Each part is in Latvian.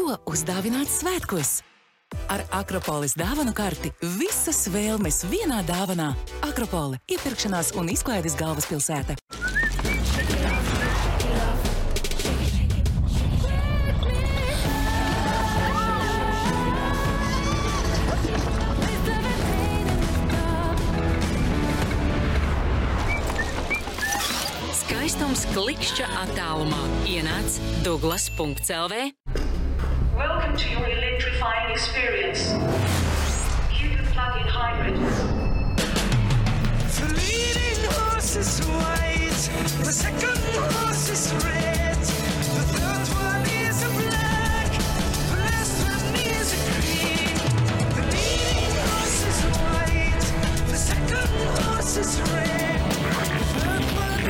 Ko uzdāvināt svētkos? Ar Akropolis dāvanu karti visas vēlmes vienā dāvanā. Akropole – iepirkšanās un izklaides galvaspilsēta. Skaistums klikšķa attālumā. Ienāc Douglas.lv. Welcome to your electrifying experience. Cupid plug-in hybrid. The leading horse is white, the second horse is red, the third one is a black, the last one is a green. The leading horse is white, the second horse is red, the third one is...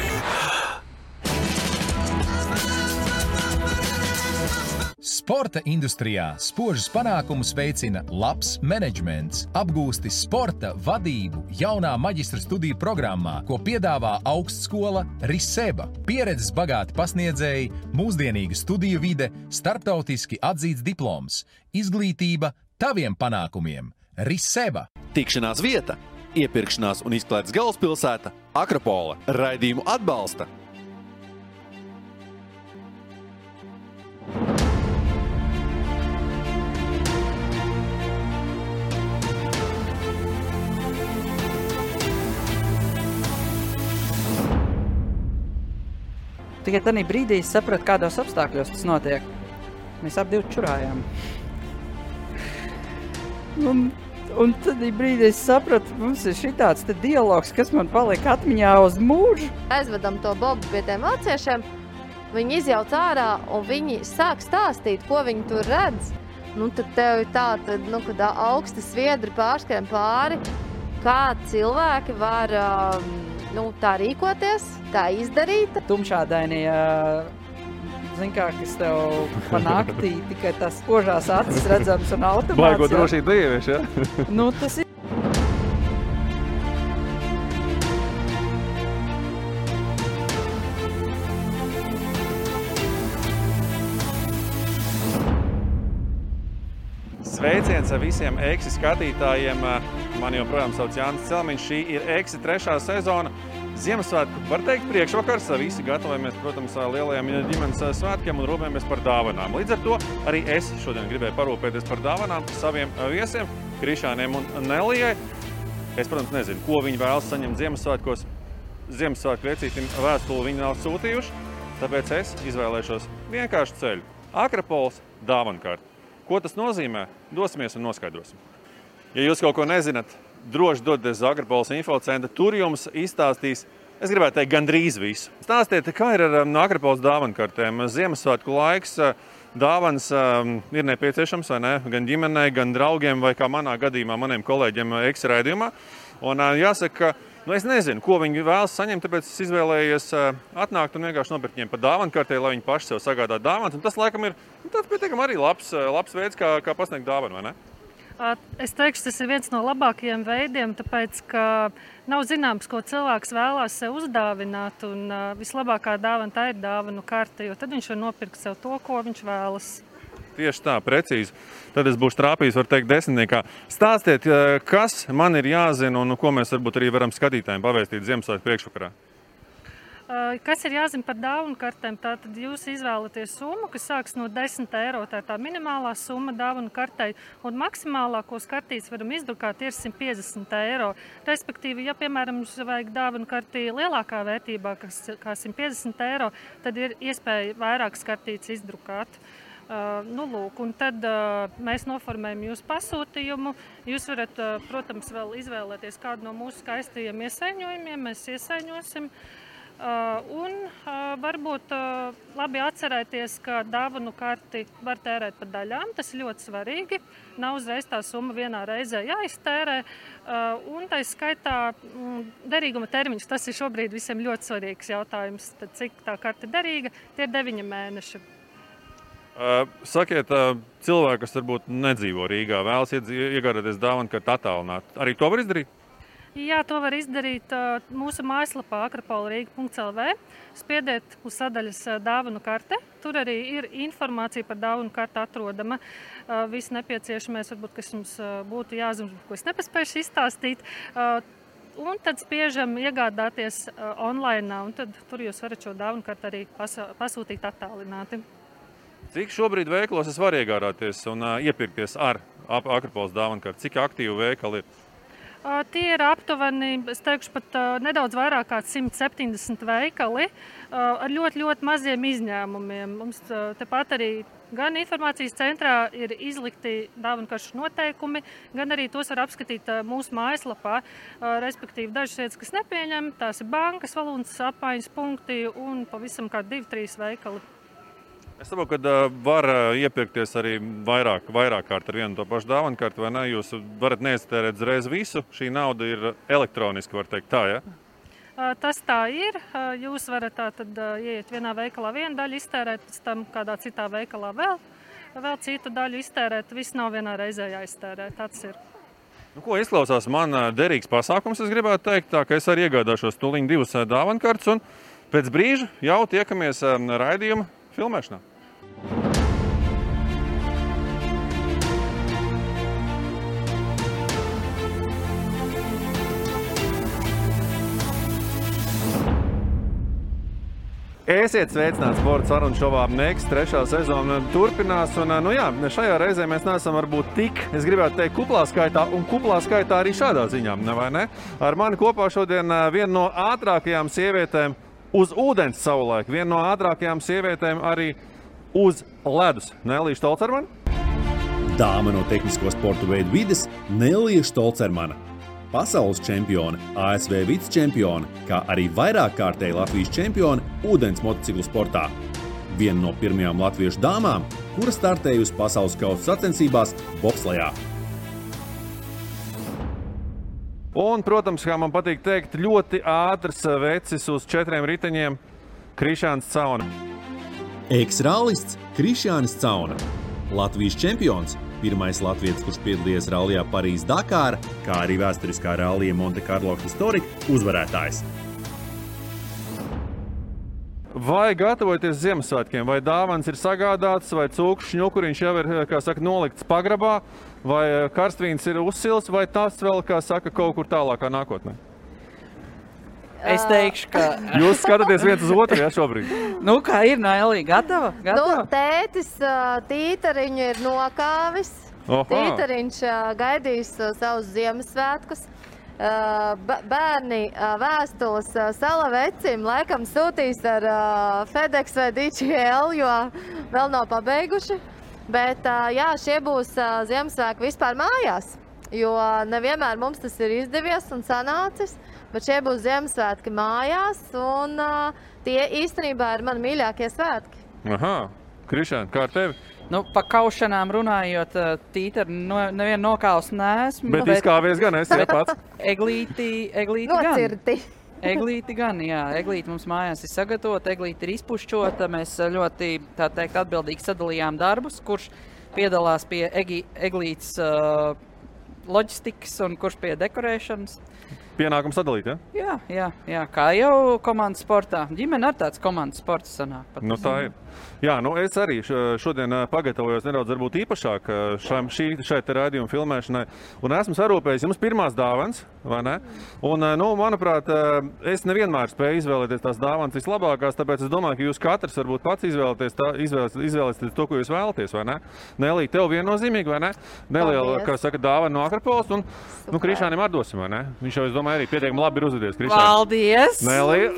Sporta industrijā spožus panākumus veicina labs menedžments. Apgūsti sporta vadību jaunā maģistra studiju programmā, ko piedāvā augstskola Riseba. Pieredzes bagāti pasniedzēji, mūsdienīga studiju vide, starptautiski atzīts diploms. Izglītība taviem panākumiem. Riseba. Tikšanās vieta, iepirkšanās un izklaides galvaspilsēta Akropole. Raidījumu atbalsta. Tikai tādā brīdī es sapratu, kādos apstākļos tas notiek. Mēs abi čurājām. Un tad brīdī es sapratu, mums ir šitāds te dialogs, kas man paliek atmiņā uz mūžu. Aizvedam to Bobu pie tiem vāciešiem, viņi izjauc ārā un viņi sāk stāstīt, ko viņi tur redz. Tad tev ir tā, kad augsti sviedri pārskrien pāri, kā cilvēki var tā rīkoties, tā izdarīt. Tumšādainie, kas tev pa naktī tikai tās spožās acis redzams un automāts. Baigo drošību dievieš, ja? Tas ir. Sveiciens visiem Eksi skatītājiem. Mani joprojām sauc Jānis Celmiņš. Šī ir Eksi 3. sezona. Ziemassvētku, var teikt, priekšvakars. Visi gatavojamies, protams, lielajiem ģimenes svētkiem un rūpējamies par dāvanām. Līdz ar to arī es šodien gribēju parūpēties par dāvanām saviem viesiem, Krišāniem un Nelijai. Es, protams, nezinu, ko viņi vēlas saņemt Ziemassvētkos. Ziemassvētku vecītim vēstuli viņi nav sūtījuši, tāpēc es izvēlēšos vienkāršu ceļu. Akropoles dāvankarti. Ko tas nozīmē? Dosimies un noskaidrosim. Ja jūs kaut ko nezināt, droši dodaties uz Akropoles infocentru, tur jums izstāstīs, es gribētu teikt, gandrīz visu. Stāstiet, kā ir ar Akropoles dāvankartēm? Ziemassvētku laiks, dāvanas ir nepieciešams, vai ne? Gan ģimenei, gan draugiem, vai kā manā gadījumā, maniem kolēģiem Eksi raidījumā. Un jāsaka, es nezinu, ko viņi vēlas saņemt, tāpēc es izvēlējies atnākt un vienkārši nopirkt viņiem pa dāvankartē, lai viņi paši sev sagādā dāvanas. Un tas, laikam, ir tāds pietiekami arī labs veids, kā pasniegt dāvanu, vai ne? Es teikšu, tas ir viens no labākajiem veidiem, tāpēc, ka nav zināms, ko cilvēks vēlās sev uzdāvināt, un vislabākā dāvana tā ir dāvanu karte, jo tad viņš var nopirkt sev to, ko viņš vēlas. Tieši tā, precīzi. Tad es būšu trāpījis, var teikt, 10. Stāstiet, kas man ir jāzina un ko mēs varbūt arī varam skatītājiem pavēstīt Ziemassvētku priekšvakarā? Kas ir jāzina par dāvanu kartēm? Tātad jūs izvēlaties summu, kas sāks no 10 eiro. Tā ir tā minimālā summa dāvanu kartei. Un maksimālā, ko kartītes varam izdrukāt, ir 150 eiro. Respektīvi, ja, piemēram, mums vajag dāvanu kartī lielākā vērtībā, kā 150 eiro, tad ir iespēja vairākas kartītes izdrukāt. Un tad mēs noformējam jūsu pasūtījumu. Jūs varat, protams, vēl izvēlēties kādu no mūsu skaistajiem iesaiņojumiem. Mēs iesaiņosim. Varbūt labi atcerēties, ka dāvanu karti var tērēt pa daļām. Tas ir ļoti svarīgi. Nav uzreiz tā summa vienā reizē jāiztērē. Un tā skaitā derīguma termiņš, tas ir šobrīd visiem ļoti svarīgs jautājums. Tad, cik tā karta ir derīga, tie ir 9 mēneši. Sakiet, cilvēki, kas varbūt nedzīvo Rīgā, vēlas iegādāties dāvanu karti attālināt. Arī to var izdarīt? Jā, to var izdarīt mūsu mājaslapā akropolrīga.lv. Spiediet uz sadaļas dāvanu karte. Tur arī ir informācija par dāvanu karti atrodama. Viss nepieciešamais, varbūt, kas jums būtu jāzina, ko es nepaspējuši izstāstīt. Un tad spiežam iegādāties online, un tad tur jūs varat šo dāvanu karti arī pasūtīt attālināti. Cik šobrīd veikalos es varu iegādāties un iepirkties ar Akropoles dāvanu karti? Cik aktīvi veikali ir? Tie ir aptuveni, es teikšu, pat nedaudz vairāk kā 170 veikali ar ļoti, ļoti maziem izņēmumiem. Mums tepat arī gan informācijas centrā ir izlikti dāvankaršu noteikumi, gan arī tos var apskatīt mūsu mājaslapā. Respektīvi, dažas vietas, kas nepieņem, tās ir bankas, valūtas apmaiņas punkti un pavisam kā 2-3 veikali. Es saprotu, ka var iepirkties arī vairāk kārt ar vienu to pašu dāvanu karti, vai ne? Jūs varat neiztērēt uzreiz visu. Šī nauda ir elektroniski, var teikt tā, ja? Tas tā ir. Jūs varat tātad ieiet vienā veikalā vienu daļu iztērēt, pēc tam kādā citā veikalā vēl citu daļu iztērēt. Viss nav vienā reizē jāiztērē. Tāds ir. Nu, ko izklausās man derīgs pasākums, es gribētu teikt, tā ka es arī iegādāšos tūliņ 2 dāvanu kartes un pēc brīža jau tiekamies raidījuma filmēšanā. Esiet sveicināti sporta sarunu šovā Next 3. sezona turpinās. Un, šajā reizē mēs neesam varbūt tik, es gribētu teikt, kuplā skaitā arī šādā ziņā, vai ne? Ar mani kopā šodien viena no ātrākajām sievietēm uz ūdens savulaik, viena no ātrākajām sievietēm arī uz ledus. Nelija Štolcermana? Dāma no tehnisko sportu veidu vides Nelija Štolcermana. Pasaules čempione, ASV vicečempione, kā arī vairākkārtēji Latvijas čempione ūdens motociklu sportā. Viena no pirmajām latviešu dāmām, kura startējusi pasaules kausa sacensībās bobslejā. Un, protams, kā man patīk teikt, ļoti ātrs vecis uz 4 riteņiem Krišjāns Cauna. Eks-rallists Krišjānis Cauna. Latvijas čempions, pirmais latvietis, kurš piedalījies rallijā Parīzes-Dakāra, kā arī vēsturiskā rallija Monte Carlo Historic uzvarētājs. Vai gatavojaties Ziemassvētkiem? Vai dāvans ir sagādāts, vai cūku šņukuriņš jau ir, kā saka, nolikts pagrabā, vai karstvīns ir uzsils, vai tas vēl, kā saka, kaut kur tālākā nākotnē? Es teikšu, ka... Jūs skatāties viens uz otru, ja, šobrīd? Nu, kā ir, Nelija? Gatava? Nu, tētis tītariņu ir nokāvis. Tītariņš gaidīs savus Ziemassvētkus. Bērni vēstules Salavecim laikam sūtīs ar FedEx vai DHL, jo vēl nav pabeiguši. Bet jā, šie būs Ziemassvētki vispār mājās, jo nevienmēr mums tas ir izdevies un sanācis. Bet šie būs Ziemassvētki mājās, un tie īstenībā ir mani mīļākie svētki. Aha, Krišjān, kā ar tevi? Nu, pa kaušanām runājot, tītari nevienu nokāvus neesmu. Bet izkāvies gan esi, ja pats? Eglīti Nocirti. Eglīti gan, jā. Eglīti mums mājās ir sagatavota, eglīti ir izpušķota. Mēs ļoti, tā teikt, atbildīgi sadalījām darbus, kurš piedalās pie eglītes loģistikas un kurš pie dekorēšanas. Pienākums sadalīt, ja? Jā, kā jau komandas sportā. Ģimene ar tāds komandas sports sanāk. Nu, tā ir. Jā, nu es arī šodien pagatavojos nedaudz varbūt īpašāk šai te raidījuma filmēšanai. Un esmu sarūpējis jums pirmās dāvanas, vai ne? Un, nu, manuprāt, es nevienmēr spēju izvēlēties tās dāvanas vislabākās, tāpēc es domāju, ka jūs katrs varbūt pats izvēlēties to, ko jūs vēlaties, vai ne? Nelija, tev viennozīmīgi, vai ne? Neliela, kā saka, dāvana no Akropoles, un nu, Krišjānim atdosim, vai ne? Viņš jau, es domāju, arī pietiekami labi ir uzvedies. Paldies! Nelija,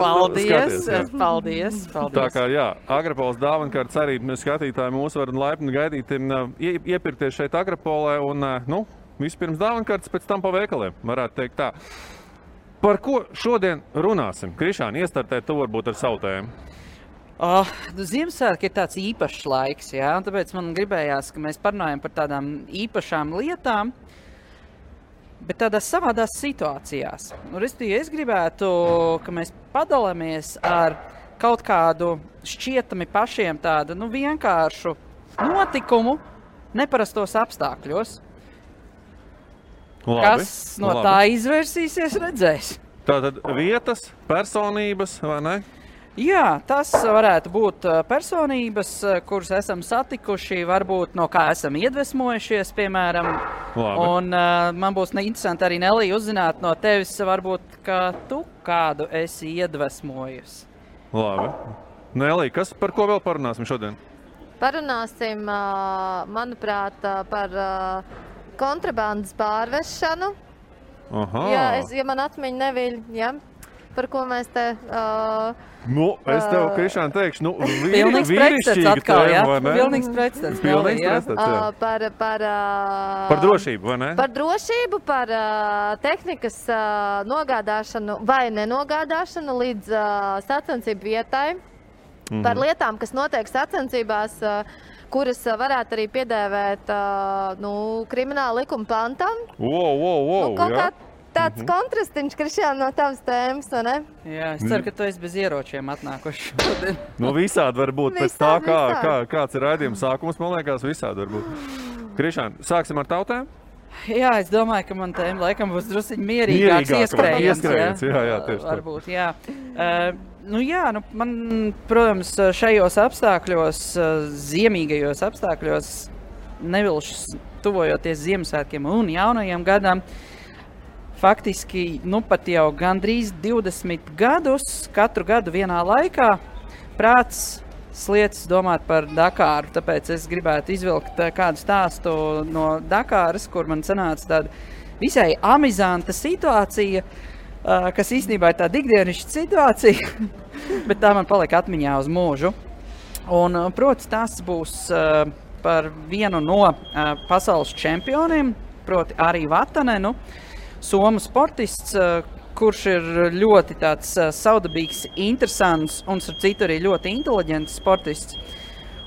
Paldies! Tā kā, jā, Akropoles dāvankartes arī skatītāji mūs var laipni gaidīt, iepirkties šeit Akropolē un, nu, vispirms dāvankartes, pēc tam pa veikaliem, varētu teikt tā. Par ko šodien runāsim? Krišjāni, iestartēt tu varbūt ar savu tēmu. Ziemassvētki ir tāds īpašs laiks, jā, un tāpēc man gribējās, ka mēs parunājam par tādām īpašām lietām, bet tādās savādās situācijās. Es gribētu, ka mēs padalāmies ar kaut kādu šķietami pašiem tādu, nu, vienkāršu notikumu neparastos apstākļos. Kas no tā izvērsīsies, redzēs. Tātad vietas, personības, vai ne? Jā, tas varētu būt personības, kuras esam satikuši, varbūt no kā esam iedvesmojušies, piemēram. Labi. Un man būs interesanti arī, Nelī, uzzināt no tevis, varbūt, ka tu kādu esi iedvesmojusi. Labi. Nelī, par ko vēl parunāsim šodien? Parunāsim, manuprāt, par kontrabandas pārvešanu. Aha. Ja man atmiņa neviļ, ja? Par ko mēs te... es tev, Krišāna, teikšu, pilnīgs pretstats atkal, jā? Pilnīgs pretstats. Pilnīgs pretstats, jā. Par drošību, vai ne? Par drošību, par tehnikas nogādāšanu vai nenogādāšanu līdz sacensību vietai. Par lietām, kas notiek sacensībās, kuras varētu arī piedēvēt krimināla likuma pantam. Jā. Tāds kontrastiņš, Krišjāna, no tavas tēmas, vai ne? Jā, es ceru, ka tu esi bez ieročiem atnākuši. Visādi var būt. Pēc tā, kāds ir raidījuma sākums, man liekas, visādi var būt. Krišāna, sāksim ar tautēm? Jā, es domāju, ka man tēma laikam būs drusciņ mierīgāks ieskrējiens. Jā, tieši tā. Varbūt, jā. Man, protams, šajos apstākļos, ziemīgajos apstākļos, nevilšas tuvojoties Ziemassvētkiem un jaunajiem gadam, faktiski, pat jau gandrīz 20 gadus, katru gadu vienā laikā, prāts sliecas domāt par Dakāru. Tāpēc es gribētu izvilkt kādu stāstu no Dakāras, kur man sanāca tāda visai amizanta situācija, kas īstenībā ir tāda ikdienišķa situācija, bet tā man palika atmiņā uz mūžu. Un, proti, tas būs par vienu no pasaules čempioniem, proti arī Vatanenu, somu sportists, kurš ir ļoti tāds saudabīgs, interesants un, starp citu, arī ļoti inteliģents sportists.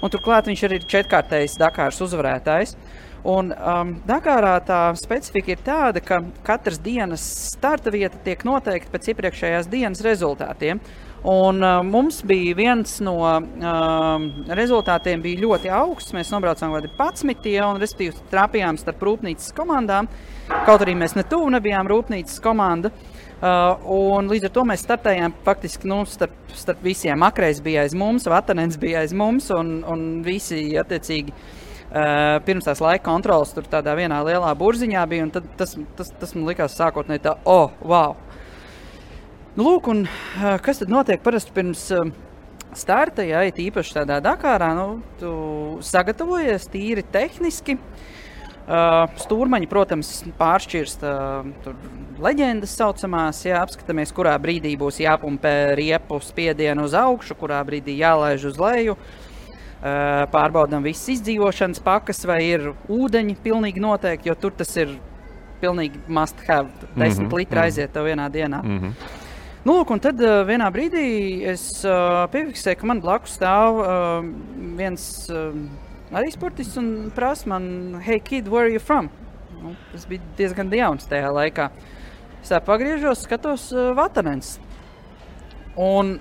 Un turklāt viņš arī ir 4-kārtējs Dakāras uzvarētājs. Un Dakārā tā specifika ir tāda, ka katras dienas starta vieta tiek noteikta pēc iepriekšējās dienas rezultātiem. Un mums bija viens no rezultātiem bija ļoti augsts. Mēs nobraucām kādi 11, un respektīvi trāpījām starp rūpnīcas komandām. Kaut arī mēs netuvu nebijām rūpnīcas komanda. Un līdz ar to mēs startējām faktiski starp visiem. Akreiz bija aiz mums, Vatanens bija aiz mums, un visi attiecīgi pirms tās laika kontrolas tur tādā vienā lielā burziņā bija. Un tad tas man likās sākotnēji tā, wow! Lūk, un kas tad notiek parasti pirms starta, ja ir īpaši tādā Dakārā, tu sagatavojies tīri tehniski. Stūrmaņi, protams, pāršķirst leģendas saucamās, apskatāmies, kurā brīdī būs jāpumpē riepu spiedienu uz augšu, kurā brīdī jālaiž uz leju. Pārbaudām visas izdzīvošanas pakas, vai ir ūdeņi pilnīgi noteikti, jo tur tas ir pilnīgi must have, 10 litri aiziet tev vienā dienā. Lūk, un tad vienā brīdī es piefiksēju, ka man blakus stāv viens arī sportists un prasa man, hey kid, where are you from? Tas bija diezgan jauns tajā laikā. Es tā pagriežos, skatos Vatanens. Un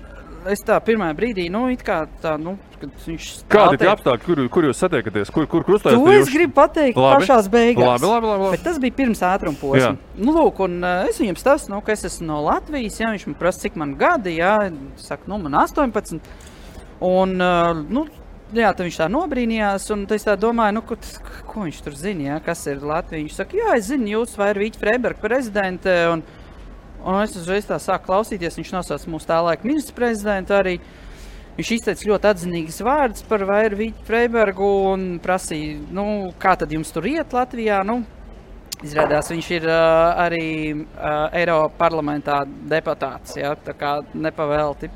es tā pirmā brīdī, it kā tā, kad viņš stāv... Kādi tie apstākļi, kur jūs satiekaties? Kur krustājas? To es gribu pateikt pašās beigās. Labi. Bet tas bija pirms ātruma posma. Lūk, un es viņam stāstu, ka es esmu no Latvijas, viņš man prasa, cik man gadi, saku, man 18. Un, tad viņš tā nobrīnījās, un es tā domāju, ko viņš tur zina, kas ir Latvija. Viņš saka, es zinu, jūs vai ir Vīķa Freiberga prezidente, un es uzreiz tā sāku klausīties, viņš nosauc mūsu tā laika ministru prezidentu arī. Viņš izteica ļoti atzinīgas vārdas par Vairu Vīķu Freibergu un prasīja, kā tad jums tur iet Latvijā. Izrādās, viņš ir arī Eiropa parlamentā deputāts, tā kā nepavēlti.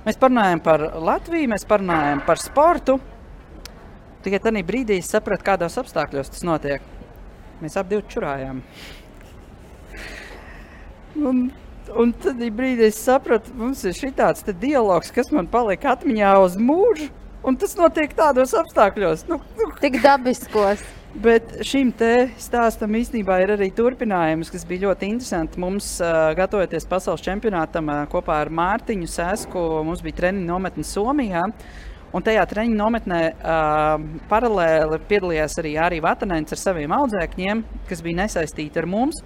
Mēs parunājam par Latviju, mēs parunājam par sportu. Tikai tādā brīdī es sapratu, kādos apstākļos tas notiek. Mēs ap divi čurājām. Un tad brīdī es sapratu, mums ir šitāds dialogs, kas man palika atmiņā uz mūžu, un tas notiek tādos apstākļos. Tik dabiskos. Bet šim te stāstam īstenībā ir arī turpinājums, kas bija ļoti interesanti. Mums, gatavoties pasaules čempionātam kopā ar Mārtiņu Sēsku, mums bija treniņu nometne Somijā. Un tajā treniņu nometnē paralēli piedalījās arī Vatanēns ar saviem audzēkņiem, kas bija nesaistīti ar mums.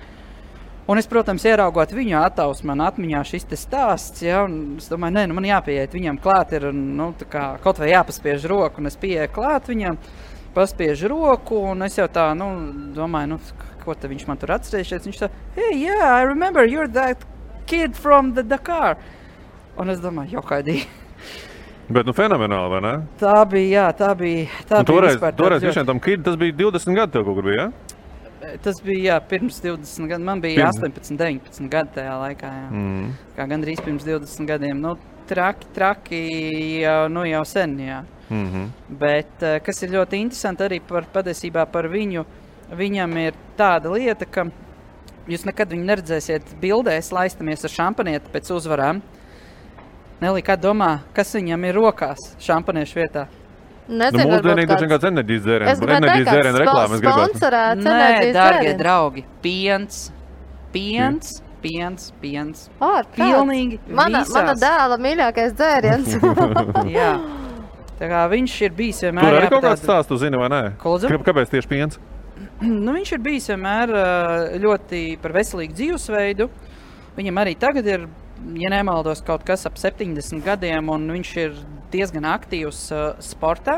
Un es, protams, ieraugot viņu attausu, man atmiņā šis te stāsts, ja, un es domāju, man jāpieiet viņam klāt ir, tā kā kaut vai jāpaspiež roku, un es pieeju klāt viņam, paspiežu roku, un es jau tā, domāju, ko te viņš man tur atcerējušies. Viņš tā, hey, yeah, I remember you're that kid from the Dakar. Un es domāju, jokaidī. Bet, fenomenāli, vai ne? Tā bija. Toreiz visiem tam kid, tas bija 20 gadi tev kaut kur bija, ja? Tas bija, pirms 20 gadiem. Man bija 18, 19 gadi tajā laikā, jā. Kā gandrīz pirms 20 gadiem. Traki jau sen, jā. Bet, kas ir ļoti interesanti arī patiesībā par viņu, viņam ir tāda lieta, ka jūs nekad viņu neredzēsiet bildēs, laistamies ar šampanieti pēc uzvarām. Nelī, kā domā, kas viņam ir rokās šampaniešu vietā? Nezinu, mūsdienīgi tas vienkārši enerģijas dzērienu reklāmas gribētu. Nē, dārgie draugi, piens. Pilnīgi visās. Mana dēla mīļākais dzēriens. Jā. Tā kā viņš ir bijis vienmēr... Tur arī kaut kāds stāsts, tu zini, vai nē? Kāpēc tieši piens? Viņš ir bijis vienmēr ļoti par veselīgu dzīvesveidu. Viņam arī tagad ir, ja nemaldos, kaut kas ap 70 gadiem, un viņš ir diezgan aktīvs sportā.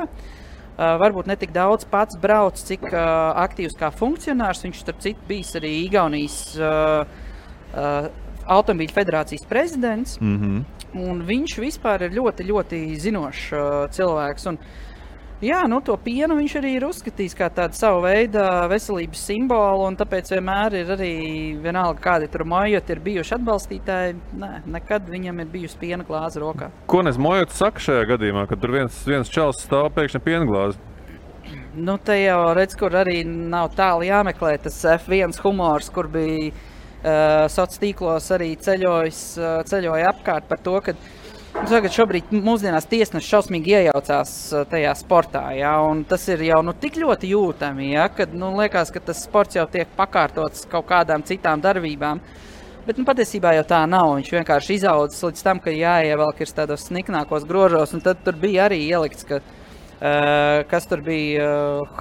Varbūt ne tik daudz pats brauc, cik aktīvs kā funkcionārs. Viņš starp citu bijis arī Igaunijas automobīļu federācijas prezidents. Un viņš vispār ir ļoti, ļoti zinošs cilvēks. Un, jā, to pienu viņš arī ir uzskatījis kā tādu savu veidu veselības simbolu, un tāpēc vienmēr ir arī vienalga, kādi tur Mojoti ir bijuši atbalstītāji. Nē, nekad viņam ir bijusi piena glāze rokā. Ko nes Mojoti saka šajā gadījumā, kad tur viens čals stāv pēkšņi piena glāzi? Te jau redz, kur arī nav tālu jāmeklē tas F1 humors, kur bija sociālos tīklos arī ceļoja apkārt par to, ka tagad šobrīd mūsdienās tiesneši šausmīgi iejaucās tajā sportā, ja, un tas ir jau tik ļoti jūtami, ja, kad liekas, ka tas sports jau tiek pakārtots kaut kādām citām darbībām. Bet patiesībā jau tā nav. Viņš vienkārši izaudzis līdz tam, ka jāievelk ir tādos sniknākos grožos, un tad tur bija arī ielikts, ka kas tur bija,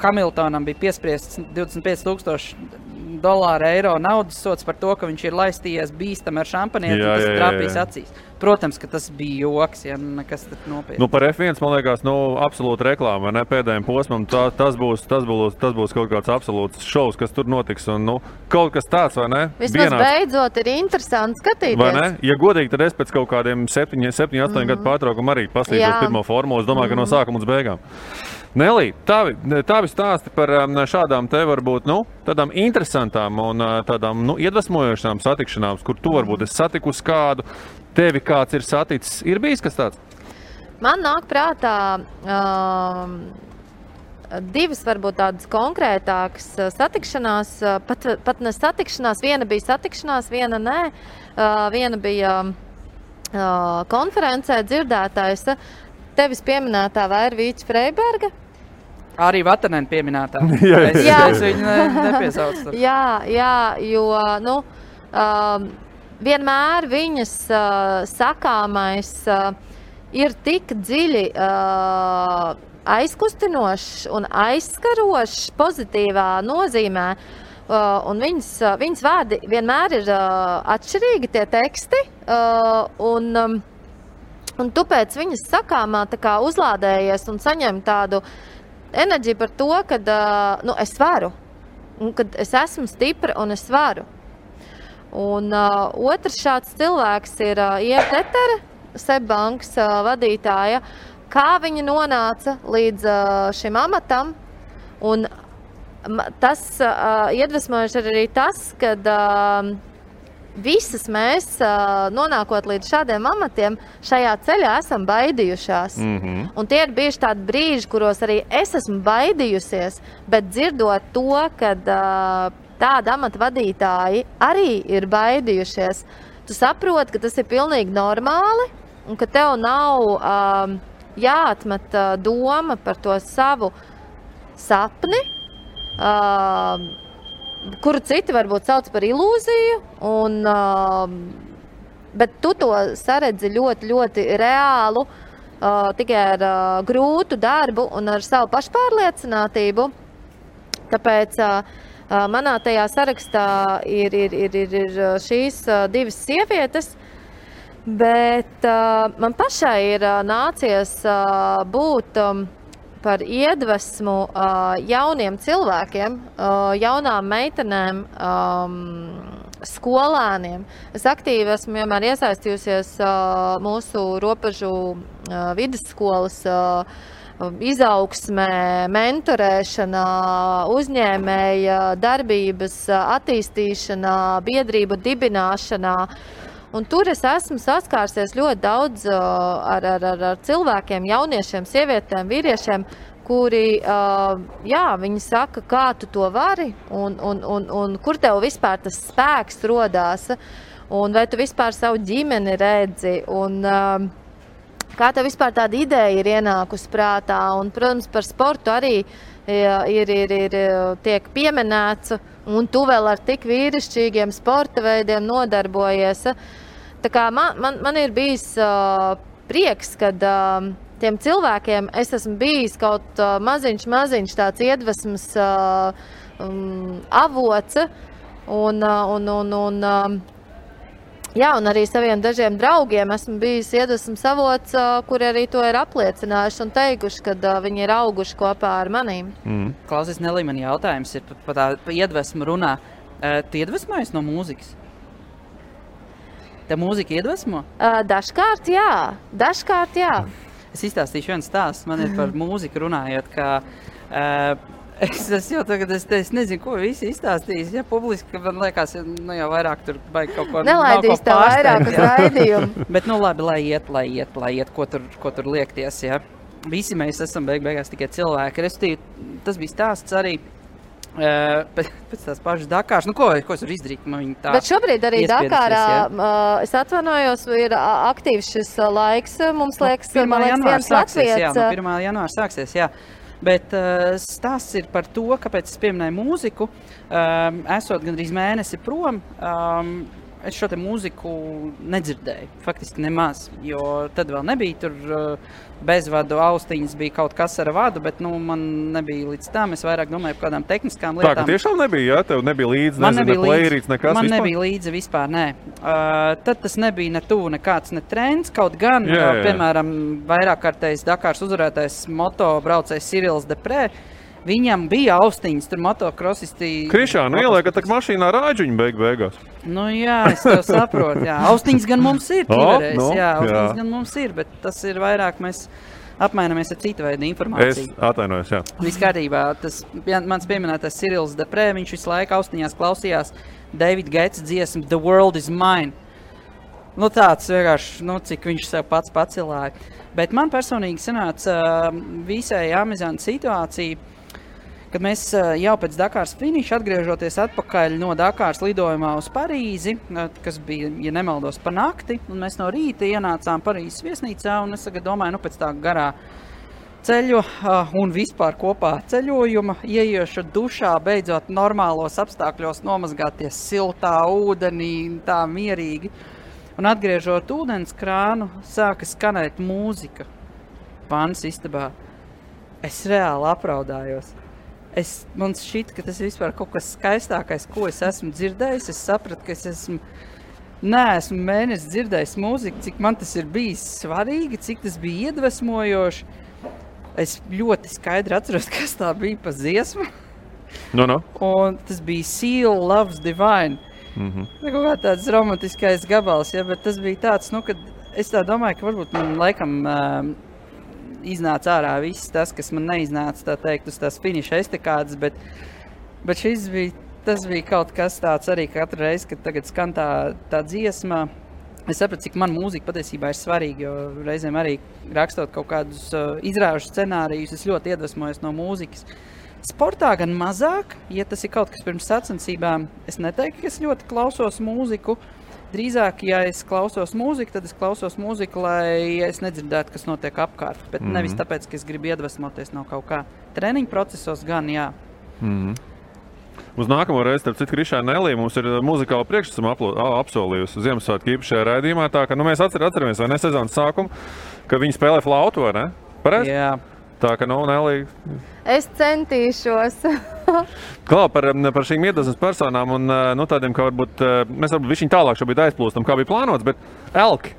Hamiltonam bija piespriests $25,000 eiro naudas sots par to, ka viņš ir laistījies bīstami ar šampanieti, un tas trāpīs acīs. Protams, ka tas bija joks, ja nekas tad nopietni. Par F1, man liekas, absolūti reklāma, ne pēdējiem posmam, tas būs kaut kāds absolūts šovs, kas tur notiks, un kaut kas tāds, vai ne? Vismaz beidzot ir interesanti skatīties. Vai ne? Ja godīgi, tad es pēc kaut kādiem 7-8 gadu pārtraukumu arī paslīdot pirmo formulu, es domāju, ka no sākuma līdz beigām. Nelī, tavi stāsti par šādām te varbūt, tādām interesantām un tādām, iedvesmojošām satikšanām, kur tu varbūt esi satikusi kādu, tevi kāds ir saticis, ir bijis kas tāds? Man nāk prātā divas varbūt tādas konkrētākas satikšanās, pat ne satikšanās, viena bija satikšanās, viena nē, viena bija konferencē dzirdētājs, tevis pieminētā Vairvīča Freiberga. Arī Vatanēna pieminētā. Es viņu nepiesaucu. Jā, jo, vienmēr viņas sakāmais ir tik dziļi aizkustinošs un aizskarošs pozitīvā nozīmē. Un viņas vārdi vienmēr ir atšķirīgi tie teksti. Un tu pēc viņas sakāmā tā kā uzlādējies un saņem tādu enerģiju par to, ka es varu. Un kad es esmu stipra un es varu. Un otrs šāds cilvēks ir Ieva Tetere, Seibankas vadītāja. Kā viņa nonāca līdz šim amatam. Un tas iedvesmojuši arī tas, kad visas mēs, nonākot līdz šādiem amatiem, šajā ceļā esam baidījušās. Un tie ir bijuši tādi brīži, kuros arī es esmu baidījusies, bet dzirdot to, kad tādi amata vadītāji arī ir baidījušies, tu saproti, ka tas ir pilnīgi normāli un ka tev nav jāatmet doma par to savu sapni, kuru citi varbūt sauc par ilūziju, bet tu to saredzi ļoti, ļoti reālu, tikai ar grūtu darbu un ar savu pašpārliecinātību. Tāpēc manā tajā sarakstā ir šīs divas sievietes, bet man pašai ir nācies būt par iedvesmu jauniem cilvēkiem, jaunām meitenēm, skolēniem. Es aktīvi esmu vienmēr iesaistījusies mūsu robežu vidusskolas izaugsmē, mentorēšanā, uzņēmēja darbības attīstīšanā, biedrību dibināšanā. Un tur es esmu saskārsies ļoti daudz ar cilvēkiem, jauniešiem, sievietēm, vīriešiem, kuri, viņi saka, kā tu to vari un kur tev vispār tas spēks rodās, un vai tu vispār savu ģimeni redzi, un kā tev vispār tāda ideja ir ienākusi prātā. Un, protams, par sportu arī tiek pieminēts, un tu vēl ar tik vīrišķīgiem sporta veidiem nodarbojies. Tā kā man ir bijis prieks, kad tiem cilvēkiem es esmu bijis kaut maziņš tāds iedvesmas avots, un arī saviem dažiem draugiem esmu bijis iedvesmas avots, kuri arī to ir apliecinājuši un teikuši, kad viņi ir auguši kopā ar manīm. Klausies, Nelī, man jautājums ir par tā iedvesmu runā. Tu iedvesmojies no mūzikas? Tev mūzika iedvesmo? Dažkārt jā. Es izstāstīšu vienu stāstu. Man ir par mūziku runājot, ka es jau tagad es nezinu, ko visi izstāstīs. Ja publiski, man liekas, jau vairāk tur baigi kaut ko nelaidīs tā vairāk uz raidījumu. Bet labi, lai iet, ko tur liekties. Ja? Visi mēs esam beigās tikai cilvēki. Restīvi, tas bija stāsts arī pēc tās pašas Dakāras. Ko es varu izdarīt? Bet šobrīd arī Dakārā, es atvainojos, ir aktīvs šis laiks. Mums liekas, viens Latvijas. 1. janvāra sāksies, jā. Bet stāsts ir par to, kāpēc es pieminēju mūziku. Esot gandrīz mēnesi prom, es šo te mūziku nedzirdēju, faktiski nemaz, jo tad vēl nebija tur bezvadu austiņas, bija kaut kas ar vadu, bet man nebija līdz tam. Es vairāk domāju par kādām tehniskām lietām. Tā, ka tiešām nebija, jā? Tev nebija līdzi, ne playerīts, nekas vispār? Man nebija līdzi vispār, nē. Tad tas nebija ne tuvu nekāds ne trends, kaut gan, piemēram, vairāk kārtējs Dakāras uzvarētais moto braucējs Cyrils Deprē. Viņam bija austiņas, tur motokrosisti... Krišā, ieliekat tak mašīnā rāģuņu beigās. Jā, es tev saprotu, jā. Austiņas gan mums ir, austiņas gan mums ir, bet tas ir vairāk mēs apmainamies ar citu veidu informāciju. Es atvainojos, jā. Viss kārtībā, tas mans pieminētais Cyrils Deprē, viņš visu laiku austiņās klausījās David Gates dziesmu The World is Mine. Tāds vienkārši, cik viņš sev pats pacilāja. Bet man personīgi sanāca visai amizanta situācija, kad mēs jau pēc Dakāras finiša atgriežoties atpakaļ no Dakāras lidojumā uz Parīzi, kas bija, ja nemaldos, pa nakti, un mēs no rīta ienācām Parīzes viesnīcā, un es tagad domāju, pēc tā garā ceļu un vispār kopā ceļojuma, ieiešu dušā, beidzot normālos apstākļos nomazgāties siltā ūdenī, tā mierīgi. Un atgriežot ūdens krānu, sāka skanēt mūzika vannas istabā. Es reāli apraudājos. Man šķita, ka tas ir vispār kaut kas skaistākais, ko es esmu dzirdējis. Es sapratu, ka es neesmu mēnesi dzirdējis mūziku, cik man tas ir bijis svarīgi, cik tas bija iedvesmojoši. Es ļoti skaidri atceros, kas tā bija pa dziesmu. Un tas bija Seal Loves Divine. Kaut kā tāds romantiskais gabals, ja, bet tas bija tāds, kad es tā domāju, ka varbūt man laikam iznāca ārā viss tas, kas man neiznāca, tā teikt, uz tās finiša estekādes, bet tas bija kaut kas tāds arī katru reizi, kad tagad skan tā dziesma. Es sapratu, cik man mūzika patiesībā ir svarīga, jo reizēm arī rakstot kaut kādus izrāžu scenārijus, es ļoti iedvesmojos no mūzikas. Sportā gan mazāk, ja tas ir kaut kas pirms sacensībām, es neteiktu, ka es ļoti klausos mūziku. Drīzāk, ja es klausos mūziku, tad es klausos mūziku, lai es nedzirdētu, kas notiek apkārt. Bet nevis tāpēc, ka es gribu iedvesmoties no kaut kā. Treniņu procesos gan, jā. Uz nākamo reizi, starp citu, Krišā Nelī mums ir muzikāla priekšnesuma apsolījusi Ziemassvētku īpašajā raidījumā. Tā, ka mēs atceramies, vai ne, sezonas sākumu, ka viņi spēlē flautu, vai ne? Pareizi? Jā. Tā ka, Nelī... Es centīšos. Klau, par šīm iedvesmas personām un tādiem, ka varbūt mēs višķiņ tālāk šobrīd aizplūstam, kā bija plānots, bet elki.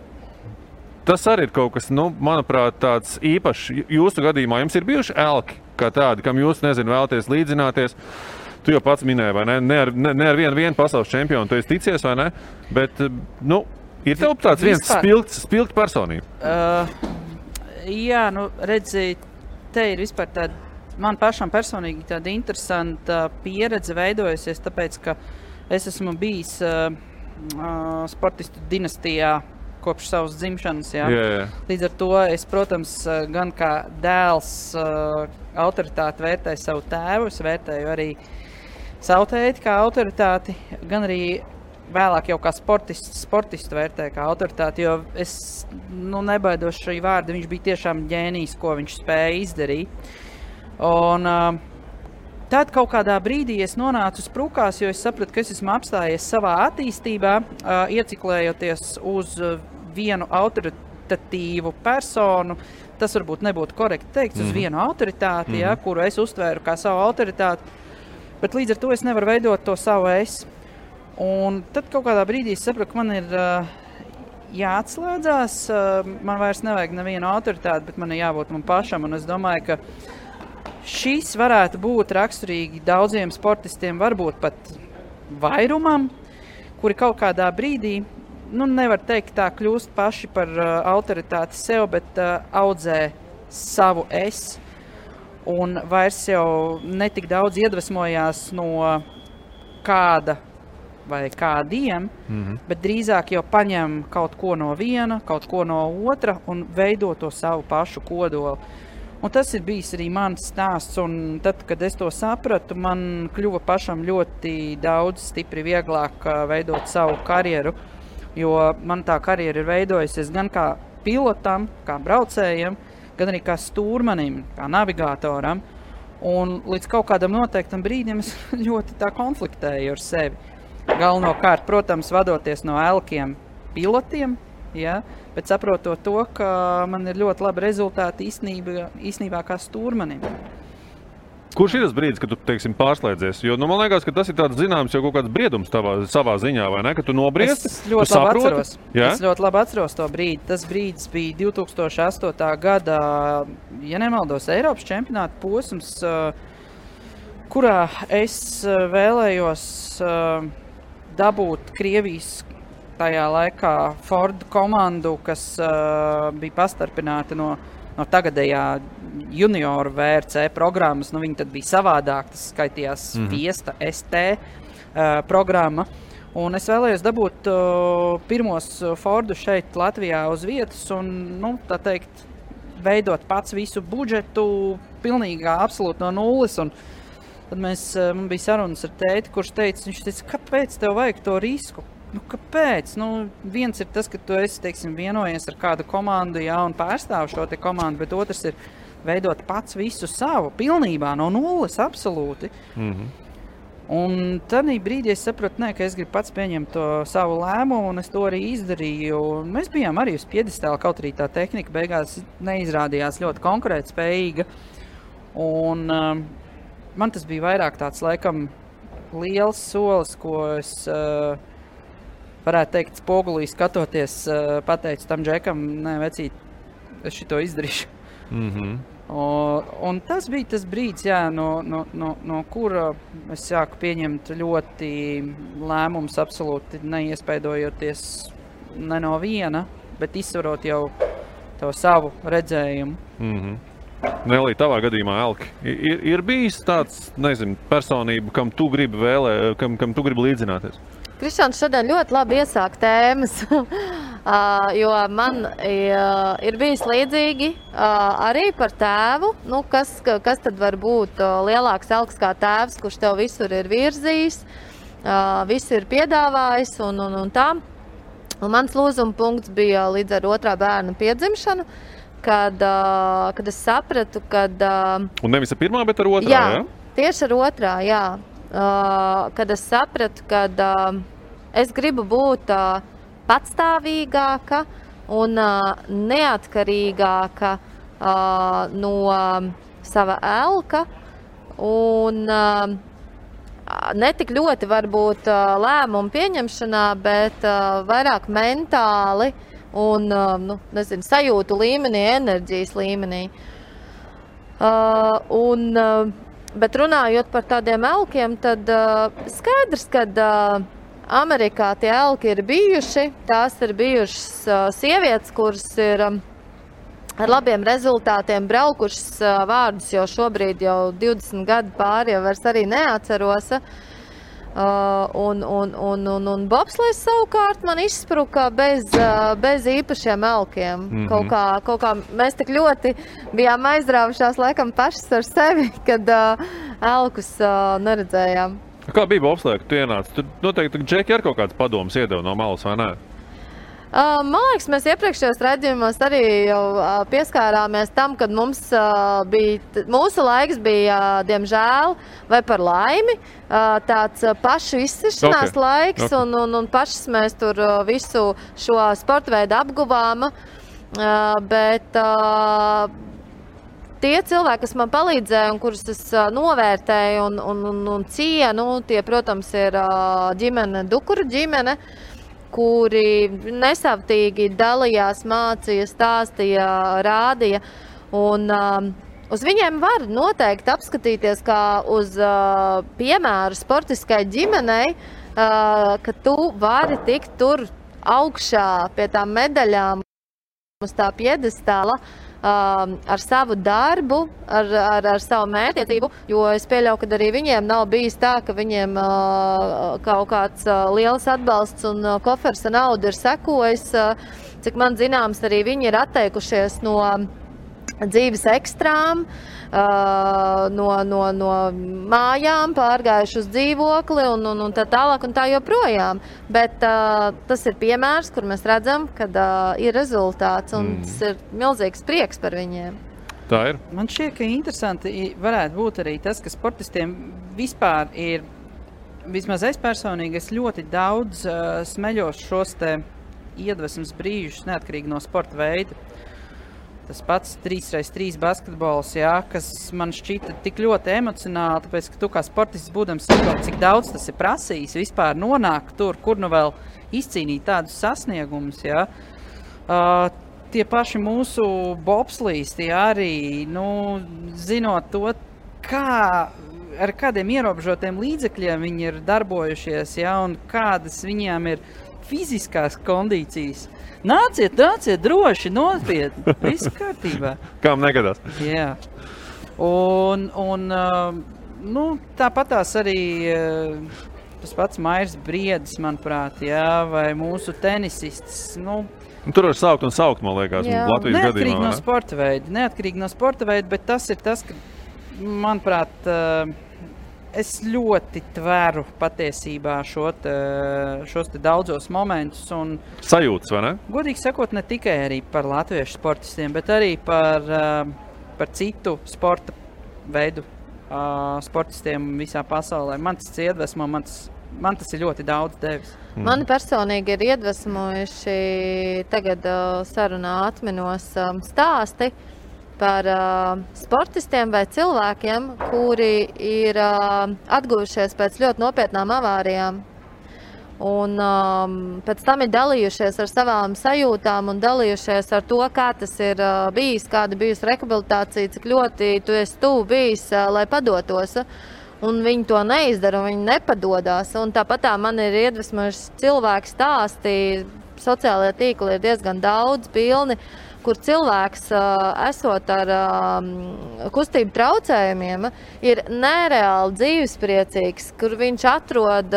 Tas arī ir kaut kas, manuprāt, tāds īpašs. Jūsu gadījumā jums ir bijuši elki kā tādi, kam jūs, vēlaties līdzināties. Tu jau pats minēji, vai ne? Ne ar vienu pasaules čempionu tu esi ticies, vai ne? Bet, ir tev tāds viens spilgt personība? Jā, redzi, te ir vispār tāda, man pašam personīgi tāda interesanta pieredze veidojusies, tāpēc, ka es esmu bijis sportistu dinastijā kopš savas dzimšanas. Jā. Līdz ar to es, protams, gan kā dēls autoritāti vērtēju savu tēvu, es vērtēju arī savu tēti kā autoritāti, gan arī vēlāk jau kā sportistu vērtēju kā autoritāti, jo es nebaidos šī vārda, viņš bija tiešām ģēnijs, ko viņš spēja izdarīt. Un tad kaut kādā brīdī es nonācu sprukās, jo es sapratu, ka es esmu apstājies savā attīstībā, ieciklējoties uz vienu autoritatīvu personu. Tas varbūt nebūtu korekti teikts, uz vienu autoritāti, kuru es uztvēru kā savu autoritāti, bet līdz ar to es nevaru veidot to savu es. Un tad kaut kādā brīdī es sapratu, ka man ir jāatslēdzās, man vairs nevajag nevienu autoritāti, bet man ir jābūt man pašam, un es domāju, ka šis varētu būt raksturīgi daudziem sportistiem, varbūt pat vairumam, kuri kaut kādā brīdī, nevar teikt tā, kļūst paši par autoritāti sev, bet audzē savu es. Un vairs jau netik daudz iedvesmojās no kāda vai kādiem, bet drīzāk jau paņem kaut ko no viena, kaut ko no otra un veido to savu pašu kodolu. Un tas ir bijis arī mans stāsts, un tad, kad es to sapratu, man kļuva pašam ļoti daudz stipri vieglāk veidot savu karjeru, jo man tā karjera ir veidojusies gan kā pilotam, kā braucējam, gan arī kā stūrmanim, kā navigātoram, un līdz kaut kādam noteiktam brīdim es ļoti tā konfliktēju ar sevi. Galvenokārt, protams, vadoties no elkiem pilotiem, ja, bet saprotot to, ka man ir ļoti labi rezultāti īstenībā kā stūrmanim. Kurš ir tas brīdis, kad tu, pārslēdzies? Jo, man liekas, ka tas ir tāds zināms jau kaut kāds briedums savā ziņā, vai ne? Ka tu nobriesti, Es ļoti labi atceros to brīdi. Tas brīdis bija 2008. gada, ja nemaldos, Eiropas čempionāta posms, kurā es vēlējos dabūt Krievijas tajā laikā Ford komandu, kas bija pastarpināta no tagadējā junioru VRC programmas. Viņi tad bija savādāk, tas skaitījās Fiesta ST programma. Un es vēlējos dabūt pirmos Fordu šeit Latvijā uz vietas un, tā teikt, veidot pats visu budžetu pilnīgi absolūti no nulles. Un tad man bija sarunas ar tēti, kurš viņš teica, kāpēc tev vajag to risku? Kāpēc? Viens ir tas, ka tu esi, vienojies ar kādu komandu, un pārstāv šo te komandu, bet otrs ir veidot pats visu savu, pilnībā, no nulles, absolūti. Un tad brīdī es sapratu, ka es gribu pats pieņemt to savu lēmumu, un es to arī izdarīju. Un mēs bijām arī uz piedestāla, kaut arī tā tehnika beigās neizrādījās ļoti konkurētspējīga. Un man tas bija vairāk tāds, laikam, liels solis, ko es varētu teikt, spogulī skatoties, pateicu tam džekam, nē, vecīt, es šito izdarīšu. Un tas bija tas brīdis, no kura es sāku pieņemt ļoti lēmumus, absolūti neiespaidojoties ne no viena, bet izsvarot jau to savu redzējumu. Nelī, tavā gadījumā, Elki, ir bijis tāds, personība, kam tu gribi kam tu gribi līdzināties? Krišāns šodien ļoti labi iesāk tēmas, jo man ir bijis līdzīgi arī par tēvu. Kas tad var būt lielāks elks kā tēvs, kurš tev visur ir virzījis, visu ir piedāvājis un tā. Un mans lūzuma punkts bija līdz ar otrā bērna piedzimšanu, kad es sapratu, Un nevis ar pirmā, bet ar otrā, jā? Tieši ar otrā, jā. Kad es sapratu, ka es gribu būt patstāvīgāka, un neatkarīgāka no sava elka un netik ļoti varbūt lēmumu pieņemšanā, bet vairāk mentāli un sajūtu līmenī, enerģijas līmenī. Bet runājot par tādiem elkiem, tad skaidrs, ka Amerikā tie elki ir bijuši. Tās ir bijušas sievietes, kuras ir ar labiem rezultātiem braukušas vārdus jau šobrīd jau 20 gadu pāri, jau vairs arī neatceros. Un bobslejs savukārt man izspruka bez īpašiem elkiem. Kaut kā mēs tik ļoti bijām aizrāvušās laikam pašas ar sevi, kad elkus neredzējām. Kā bija bobslejā, kad tu ienāci? Tur noteikti Džeki ar kaut kāds padomus iedeva no malas, vai ne? Man liekas, mēs iepriekšējos raidījumos arī jau pieskārāmies tam, kad mūsu laiks bija, diemžēl, vai par laimi, tāds pašu izsišanās laiks, un pašas mēs tur visu šo sporta veidu apguvām, bet tie cilvēki, kas man palīdzēja un kurus es novērtēju un cienu, tie, protams, ir ģimene, Dukuru ģimene, kuri nesavtīgi dalījās, mācīja, stāstīja, rādīja. Un uz viņiem var noteikti apskatīties kā uz piemēru sportiskai ģimenei, ka tu vari tikt tur augšā pie tām medaļām uz tā piedestāla ar savu darbu, ar savu mērķtiecību, jo es pieļauju, ka arī viņiem nav bijis tā, ka viņiem kaut kāds liels atbalsts un kofers ar naudu ir sekojis. Cik man zināms, arī viņi ir atteikušies no dzīves ekstrām, no mājām, pārgājuši uz dzīvokli un tā tālāk un tā joprojām. Bet tas ir piemērs, kur mēs redzam, kad ir rezultāts un tas ir milzīgs prieks par viņiem. Tā ir. Man šķiet, ka interesanti varētu būt arī tas, ka sportistiem vispār ir, vismaz es personīgi, es ļoti daudz smeļos šos te iedvesmas brīžus, neatkarīgi no sporta veida. Tas pats 3x3 basketbols, kas man šķita tik ļoti emocionāli, tāpēc, ka tu kā sportists būdams saprot, cik daudz tas ir prasījis vispār nonākt tur, kur nu vēl izcīnīt tādus sasniegumus, tie paši mūsu bobslīsti arī, zinot to, ar kādiem ierobežotiem līdzekļiem viņi ir darbojušies, un kādas viņiem ir fiziskās kondīcijas. Nāciet, droši, nopietni, viss kārtībā. Kām negadās. Jā. Un tāpatās arī tas pats Mairs Briedis, manuprāt, vai mūsu tenisists, Tur var saukt un saukt, man liekas, Latvijas gadījumā. Neatkarīgi no sporta veida, bet tas ir tas, ka, manuprāt, es ļoti tveru patiesībā šos te daudzos momentus. Sajūtas, vai ne? Godīgi sakot, ne tikai arī par latviešu sportistiem, bet arī par citu sporta veidu sportistiem visā pasaulē. Man tas iedvesmo, man tas ir ļoti daudz devis. Mani personīgi ir iedvesmojuši tagad sarunā atminos stāsti par sportistiem vai cilvēkiem, kuri ir atguvušies pēc ļoti nopietnām avārijām. Un pēc tam ir dalījušies ar savām sajūtām un dalījušies ar to, kā tas ir bijis, kāda bijusi rehabilitācija, cik ļoti tu esi tuvu bijis, lai padotos. Un viņi to neizdara, un viņi nepadodās. Un tāpat man ir iedvesmojuši cilvēki stāsti, sociālajie tīkli ir diezgan daudz pilni, kur cilvēks, esot ar kustību traucējumiem, ir nereāli dzīvespriecīgs, kur viņš atrod,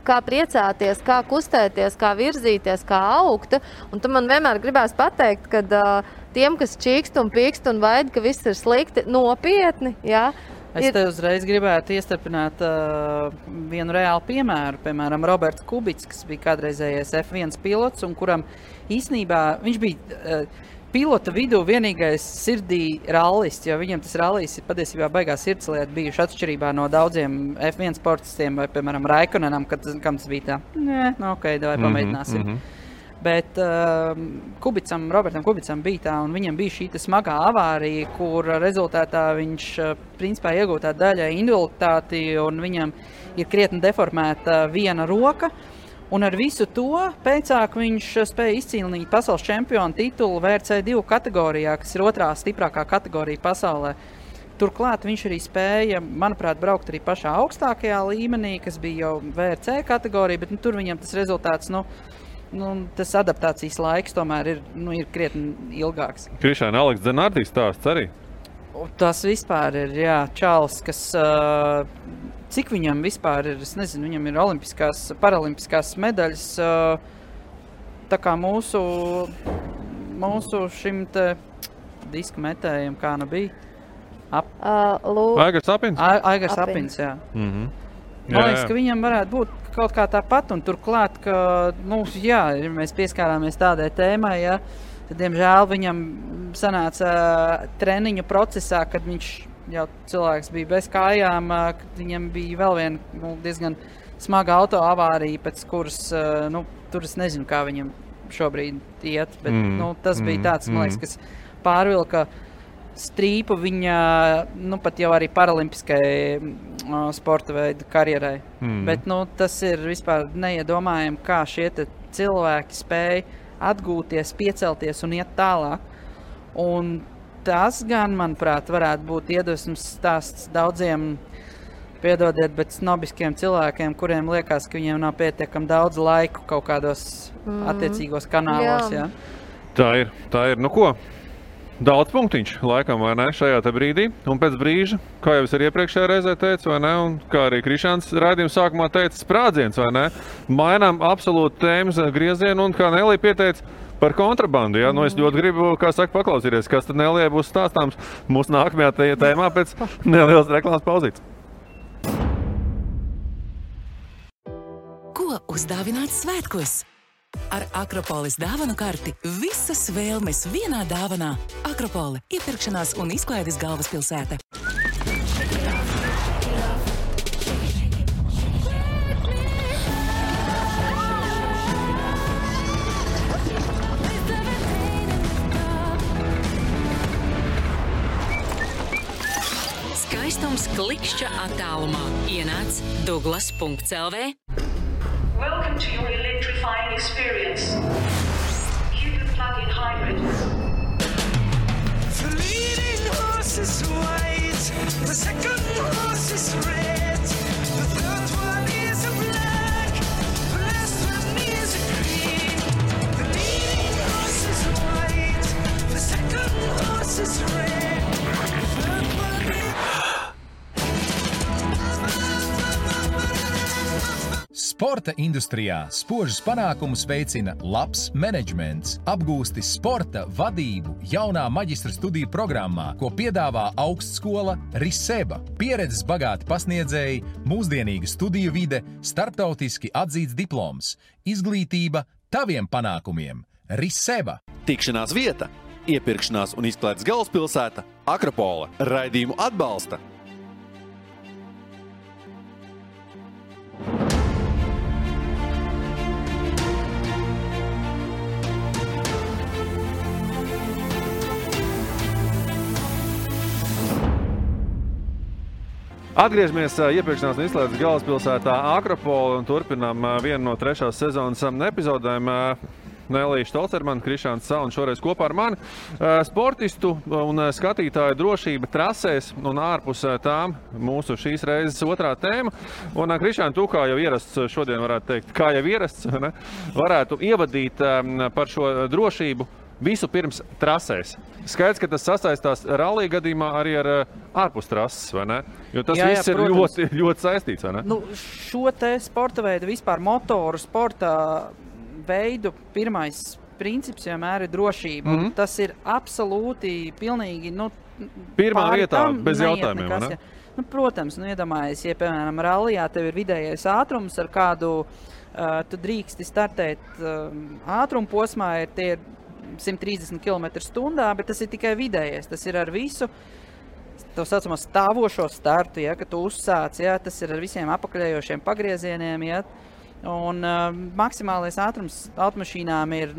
kā priecāties, kā kustēties, kā virzīties, kā augt. Un tu man vienmēr gribēs pateikt, ka tiem, kas čīkst un pīkst un vaid, ka viss ir slikti, nopietni, Es te uzreiz gribētu iestarpināt vienu reālu piemēru. Piemēram, Roberts Kubits, kas bija kādreizējais F1 pilots, un kuram īsnībā viņš bija pilota vidū vienīgais sirdī rallists, jo viņam tas rallijs ir patiesībā baigā sirdslieta bijuši atšķirībā no daudziem F1 sportistiem, vai, piemēram, Raikonenam, kam tas bija tā, ok, davai pamēģināsim. Bet Robertam Kubicam bija tā, un viņam bija šī smagā avārija, kur rezultātā viņš principā iegūtā daļa invaliditāti, un viņam ir krietni deformēta viena roka. Un ar visu to pēcāk viņš spēja izcīnīt pasaules čempionu titulu VRC2 kategorijā, kas ir otrā stiprākā kategorija pasaulē. Turklāt viņš arī spēja, manuprāt, braukt arī pašā augstākajā līmenī, kas bija jau VRC kategorija, bet tur viņam tas rezultāts, tas adaptācijas laiks tomēr ir krietni ilgāks. Krišāna, Aleks Dzenārdīs stāsts arī? Tas vispār ir, čalis, kas, cik viņam vispār ir, es nezinu, viņam ir paralimpiskās medaļas, tā kā mūsu šim te disku metējiem, kā bija. Aigars Apins? Aigars Apins, jā. Man liekas, ka viņam varētu būt kaut kā tāpat, un turklāt, ka, mēs pieskārāmies tādai tēmai, tad, diemžēl, viņam sanāca treniņu procesā, kad viņš jau cilvēks bija bez kājām, kad viņam bija vēl viena diezgan smaga autoavārija, pēc kuras, tur es nezinu, kā viņam šobrīd iet, bet, tas bija tāds, man liekas, kas pārvilka strīpu viņa, pat jau arī paralimpiskai sporta veidu karjerai. Bet, tas ir vispār neiedomājami, kā šie cilvēki spēj atgūties, piecelties un iet tālāk. Un tas gan, manuprāt, varētu būt iedvesmas stāsts daudziem, piedodiet, bet snobiskiem cilvēkiem, kuriem liekas, ka viņiem nav pietiekami daudz laiku kaut kādos attiecīgos kanālos. Jā. Tā ir. Nu ko? Daudz punktiņš, laikam, vai ne, šajā te brīdī. Un pēc brīža, kā jau es arī iepriekšējā reizē teicu, vai ne, un kā arī Krišāns raidījuma sākumā teica, sprādziens, vai ne, mainām absolūti tēmas griezienu, un kā Nelija pieteica par kontrabandu, ja? Es ļoti gribu, kā saka, paklausīties, kas tad Nelijai būs stāstāms mūsu nākamajā tēmā pēc nelielas reklāmas pauzītes. Ko uzdāvināt svētkos? Ar Akropolis dāvanu karti visas vēlmes vienā dāvanā. Akropole – iepirkšanās un izklaides galvaspilsēta. Skaistums klikšķa attālumā. Ienāc Douglas.lv. Welcome to your electrifying experience. Cupid plug-in hybrid. The leading horse is white, the second horse is red, the third one is a black, the last one is a green. The leading horse is white, the second horse is red, the third one is... Sporta industrijā spožus panākumus veicina labs menedžments. Apgūsti sporta vadību jaunā maģistra studiju programmā, ko piedāvā augstskola Riseba. Pieredzes bagāti pasniedzēji, mūsdienīga studiju vide, starptautiski atzīts diploms. Izglītība taviem panākumiem. Riseba. Tikšanās vieta, iepirkšanās un izklaides galvaspilsēta Akropole. Raidījumu atbalsta. Atgriežamies iepirkšanās un izklaides galvaspilsētā Akropole un turpinām vienu no 3. sezonas epizodēm. Nelija Štolcermana, Krišāns Sal un šoreiz kopā ar mani. Sportistu un skatītāju drošība trasēs un ārpus tām mūsu šīs reizes otrā tēma. Un Krišān, tu kā jau ierasts šodien varētu teikt, kā jau ierasts, ne? Varētu ievadīt par šo drošību visu pirms trasēs. Skaidrs, ka tas sasaistās rallija gadījumā arī ar ārpus trases, vai ne? Jo tas viss ir ļoti saistīts, vai ne? Šo te sporta veidu, vispār motoru sporta veidu, pirmais princips vienmēr ir drošība. Tas ir absolūti, pilnīgi, pirmā vietā, bez jautājumiem, vai ne? Protams, iedomājies, ja, piemēram, rallijā tev ir vidējais ātrums, ar kādu tu drīksti startēt ātrumu posmā, tie ir 130 km/h, bet tas ir tikai vidējais. Tas ir ar visu tā saucamo stāvošo startu, ja, kad tu uzsāc, ja, tas ir ar visiem apakaļējošiem pagriezieniem, ja, Un maksimālais ātrums automašīnām ir,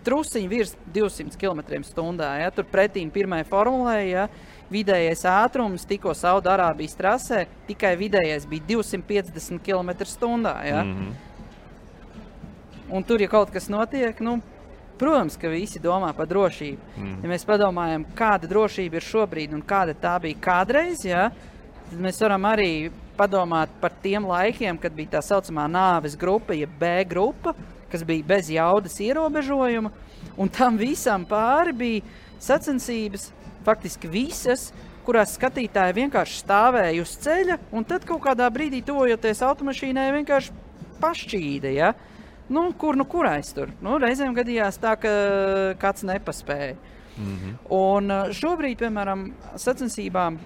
trusiņi virs 200 km/h, ja? Tur pretīm pirmai formulē, ja? Vidējais ātrums tikko Saudarābijas trasē, tikai vidējais bija 250 km/h, ja? Un tur, ja kaut kas notiek, protams, ka visi domā par drošību. Ja mēs padomājam, kāda drošība ir šobrīd un kāda tā bija kādreiz, ja? Tad mēs varam arī padomāt par tiem laikiem, kad bija tā saucamā nāves grupa, ja B grupa, kas bija bez jaudas ierobežojuma, un tam visam pāri bija sacensības, faktiski visas, kurās skatītāji vienkārši stāvēja uz ceļa, un tad kaut kādā brīdī tuvojoties automašīnai vienkārši pašķīda, ja? Kurais tur? Reizēm gadījās tā, ka kāds nepaspēja. Un šobrīd, piemēram, sacensībām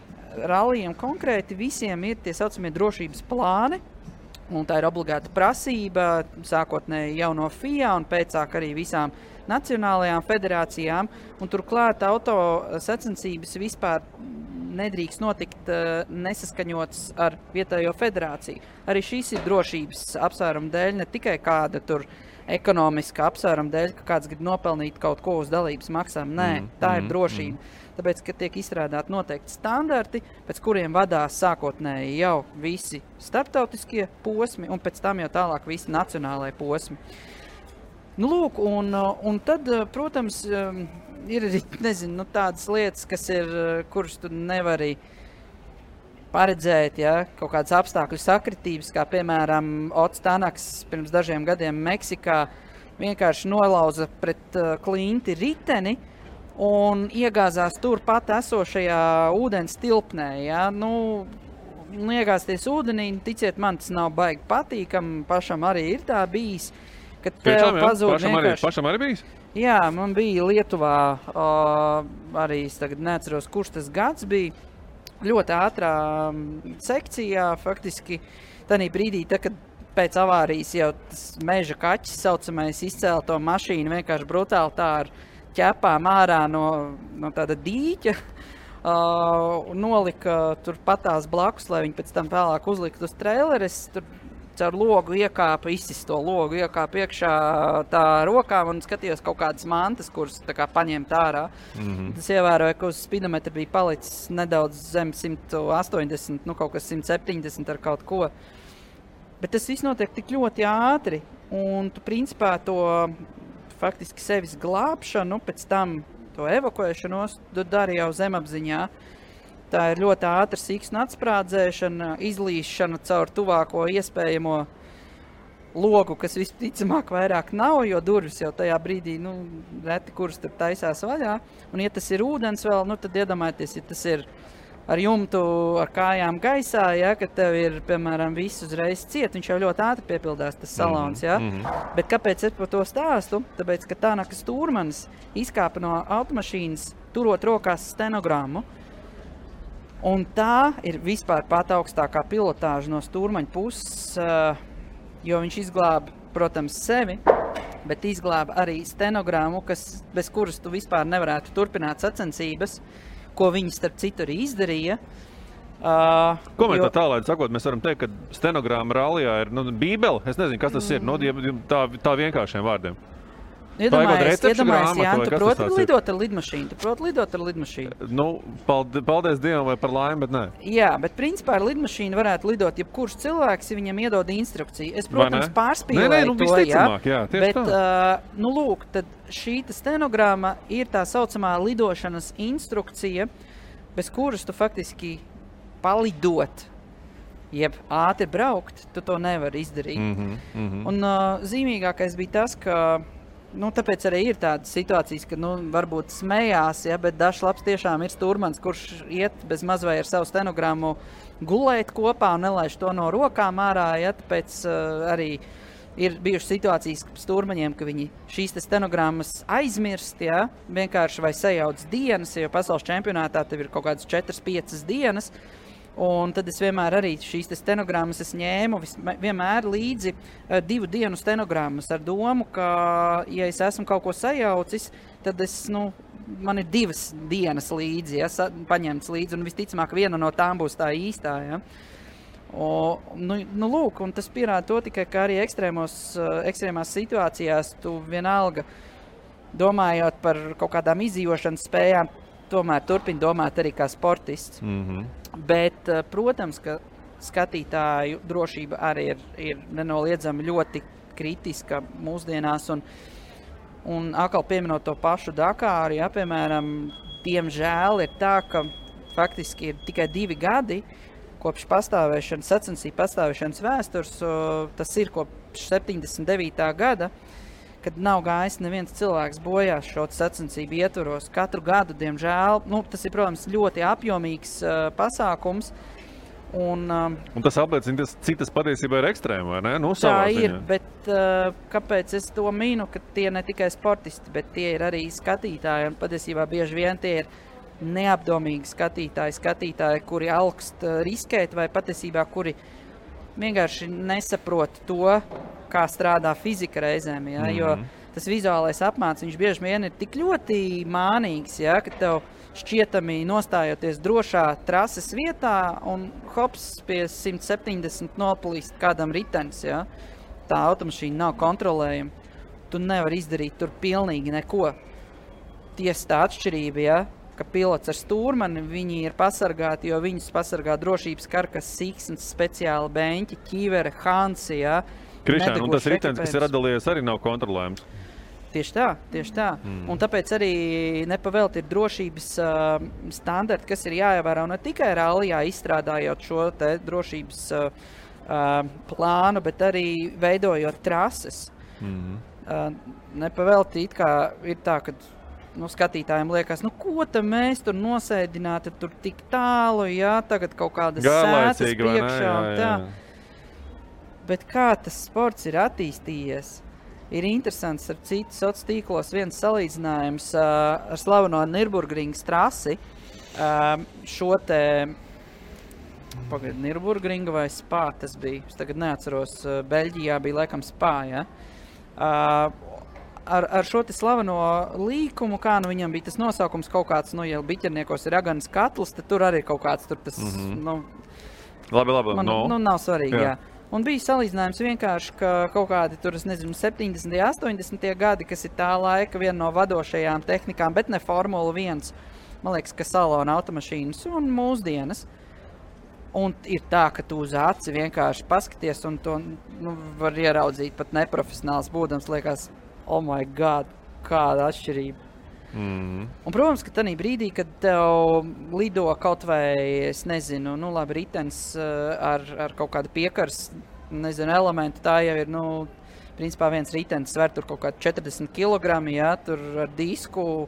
rallijiem konkrēti visiem ir tie saucamie drošības plāni, un tā ir obligāta prasība, sākotnēji jau no FIA un pēcāk arī visām nacionālajām federācijām, un turklāt auto sacensības vispār nedrīkst notikt nesaskaņots ar vietējo federāciju. Arī šīs ir drošības apsvērumu dēļ, ne tikai kāda tur ekonomiska apsvērumu dēļ, ka kāds grib nopelnīt kaut ko uz dalības maksām. Nē, tā ir drošība. Tāpēc, ka tiek izstrādāti noteikti standarti, pēc kuriem vadās sākotnēji jau visi starptautiskie posmi, un pēc tam jau tālāk visi nacionālai posmi. Un tad, protams, ir arī, tādas lietas, kuras tu nevari paredzēt, ja, kaut kādas apstākļu sakritības, kā piemēram Ots Tanaks pirms dažiem gadiem Meksikā vienkārši nolauza pret klinti riteni un iegāzās turpat esošajā ūdens tilpnē. Ja. Iegāzties ūdenī, ticiet man, tas nav baigi patīkam, pašam arī ir tā bijis. Kad tev pazūd vienkārši... Pašam arī bijis? Jā, man bija Lietuvā, arī es tagad neatceros, kurš tas gads bija, ļoti ātrā sekcijā, faktiski tādā brīdī, kad pēc avārijas jau tas meža kaķis saucamais izcēla to mašīnu vienkārši brutāli tā ar ķepām ārā no tāda dīķa, nolika tur patās blakus, lai viņi pēc tam vēlāk uzlikt uz traileres, tur caur logu iekāpa, izsist to logu, iekāpa iekšā tā rokām un skatījos kaut kādas mantas, kuras tā kā paņemt ārā. Tas ievēroja, ka uz spidometra bija palicis nedaudz zem 180, kaut kas 170 ar kaut ko. Bet tas viss notiek tik ļoti ātri, un tu principā to faktiski sevis glābšanu, pēc tam to evakuēšanos, tu dari jau zemapziņā. Tā ir ļoti ātra siksnu atsprādzēšana, izlīšana caur tuvāko iespējamo logu, kas visticamāk vairāk nav, jo durvis jau tajā brīdī, reti kuras tur taisās vaļā. Un ja tas ir ūdens vēl, tad iedomājieties, ja tas ir ar jumtu, ar kājām gaisā, ja, kad tev ir, piemēram, viss uzreiz ciet, viņš jau ļoti ātri piepildās tas salons, ja. Bet kāpēc es par to stāstu? Tāpēc, ka Tanakas Stūrmanis izkāpa no automašīnas, turot rokās stenogrammu. Un tā ir vispār pat augstākā pilotāža no Stūrmaņa puses, jo viņš izglāba, protams, sevi, bet izglāba arī stenogrammu, bez kuras tu vispār nevarētu turpināt sacensības, ko viņi starp citu arī izdarīja. Komentā tālāk sakot, mēs varam teikt, ka stenogramma rallijā ir bībele. Es nezinu, kas tas ir, tā vienkāršiem vārdiem. Iedomājies, Jāni, tu proti lidot ar lidmašīnu? Paldies Dievam vai par laimi, bet nē. Jā, bet principā ar lidmašīnu varētu lidot jebkurš cilvēks, ja viņam iedod instrukciju. Es, protams, pārspīlēju to, jā, bet, lūk, tad šī stenogramma ir tā saucamā lidošanas instrukcija, bez kuras tu faktiski palidot, jeb ātri braukt, tu to nevari izdarīt. Un zīmīgākais bija tas, ka tāpēc arī ir tādas situācijas, ka varbūt smējās, ja, bet dažs labs tiešām ir Stūrmans, kurš iet bez maz vai ar savu stenogrammu gulēt kopā un nelaiž to no rokām ārā, ja, tāpēc arī ir bijušas situācijas Stūrmaņiem, ka viņi šīs stenogrammas aizmirst, ja, vienkārši vai sajauc dienas, jo pasaules čempionātā tev ir kaut kādas 4-5 dienas. Un tad es vienmēr arī šīs stenogrammas ņēmu vienmēr līdzi 2 dienu stenogrammas ar domu, ka, ja es esmu kaut ko sajaucis, tad man ir 2 dienas līdzi, ja, paņemts līdzi, un visticamāk viena no tām būs tā īstā. Ja. Lūk, un tas pierāda to tikai, ka arī ekstrēmās situācijās tu vienalga, domājot par kaut kādām izdzīvošanas spējām, tomēr turpini domāt arī kā sportists. Bet, protams, ka skatītāju drošība arī ir nenoliedzami ļoti kritiska mūsdienās, un atkal pieminot to pašu Dakāru, ja, piemēram, diemžēl ir tā, ka faktiski ir tikai 2 gadi kopš sacensību pastāvēšanas vēstures, tas ir kopš 79. gada, kad nav gājis neviens cilvēks bojās šo sacensību ietvaros. Katru gadu, diemžēl, tas ir, protams, ļoti apjomīgs pasākums. Un tas apliecina, cik tas patiesībā ir ekstrēma, vai ne? Tā ir, bet kāpēc es to minu, ka tie ne tikai sportisti, bet tie ir arī skatītāji, un patiesībā bieži vien tie ir neapdomīgi skatītāji, kuri augst riskēt, vai patiesībā, kuri vienkārši nesaprot to, kā strādā fizika reizēm, ja? Jo tas vizuālais apmāts, viņš bieži vien ir tik ļoti mānīgs, ja? Ka tev šķietami nostājoties drošā trases vietā un hops pie 170 nopalīst kādam ritenis, ja? Tā automašīna nav kontrolējama. Tu nevari izdarīt tur pilnīgi neko. Tiesa tā atšķirība, ja? Ka pilots ar stūrmani, viņi ir pasargāti, jo viņus pasargā drošības karkas, siksns, speciāli beņķi, ķīvere, hansi, ja? Krišān, un tas ritenis, kas ir atdalījies, arī nav kontrolējams. Tieši tā. Un tāpēc arī nepavēlti ir drošības standarti, kas ir jāievēro ne tikai rallijā izstrādājot šo te drošības plānu, bet arī veidojot trases. Nepavēlti it kā ir tā, ka skatītājiem liekas, ko mēs tur nosēdināti, tur tik tālu, jā, tagad kaut kādas sētas priekšā un tā. Bet kā tas sports ir attīstījies? Ir interesants ar citu sociālos tīklos viens salīdzinājums ar slaveno Nürburgringas trasi. Šo te Nürburgringa vai Spā tas bija. Es tagad neatceros, Beļģijā bija laikam Spā, ja? Ar šo te slaveno līkumu, kā viņam bija tas nosaukums kaut kāds, ja biķerniekos ir aganas katls, tad tur arī kaut kāds tur tas, Labi, nav svarīgi, jā. Un bija salīdzinājums vienkārši, ka kaut kādi tur, 70. 80. gadi, kas ir tā laika viena no vadošajām tehnikām, bet ne Formula 1, man liekas, ka salona automašīnas un mūsdienas. Un ir tā, ka tu uz aci vienkārši paskaties un to var ieraudzīt pat neprofesionāls būdams, liekas, oh my God, kāda atšķirība. Un, protams, ka tanī brīdī, kad tev lido kaut vai, es nezinu, labi, ritenis ar kaut kādu piekars, elementu, tā jau ir, principā viens ritenis sver tur kaut kādu 40 kilogrami, ja, tur ar disku,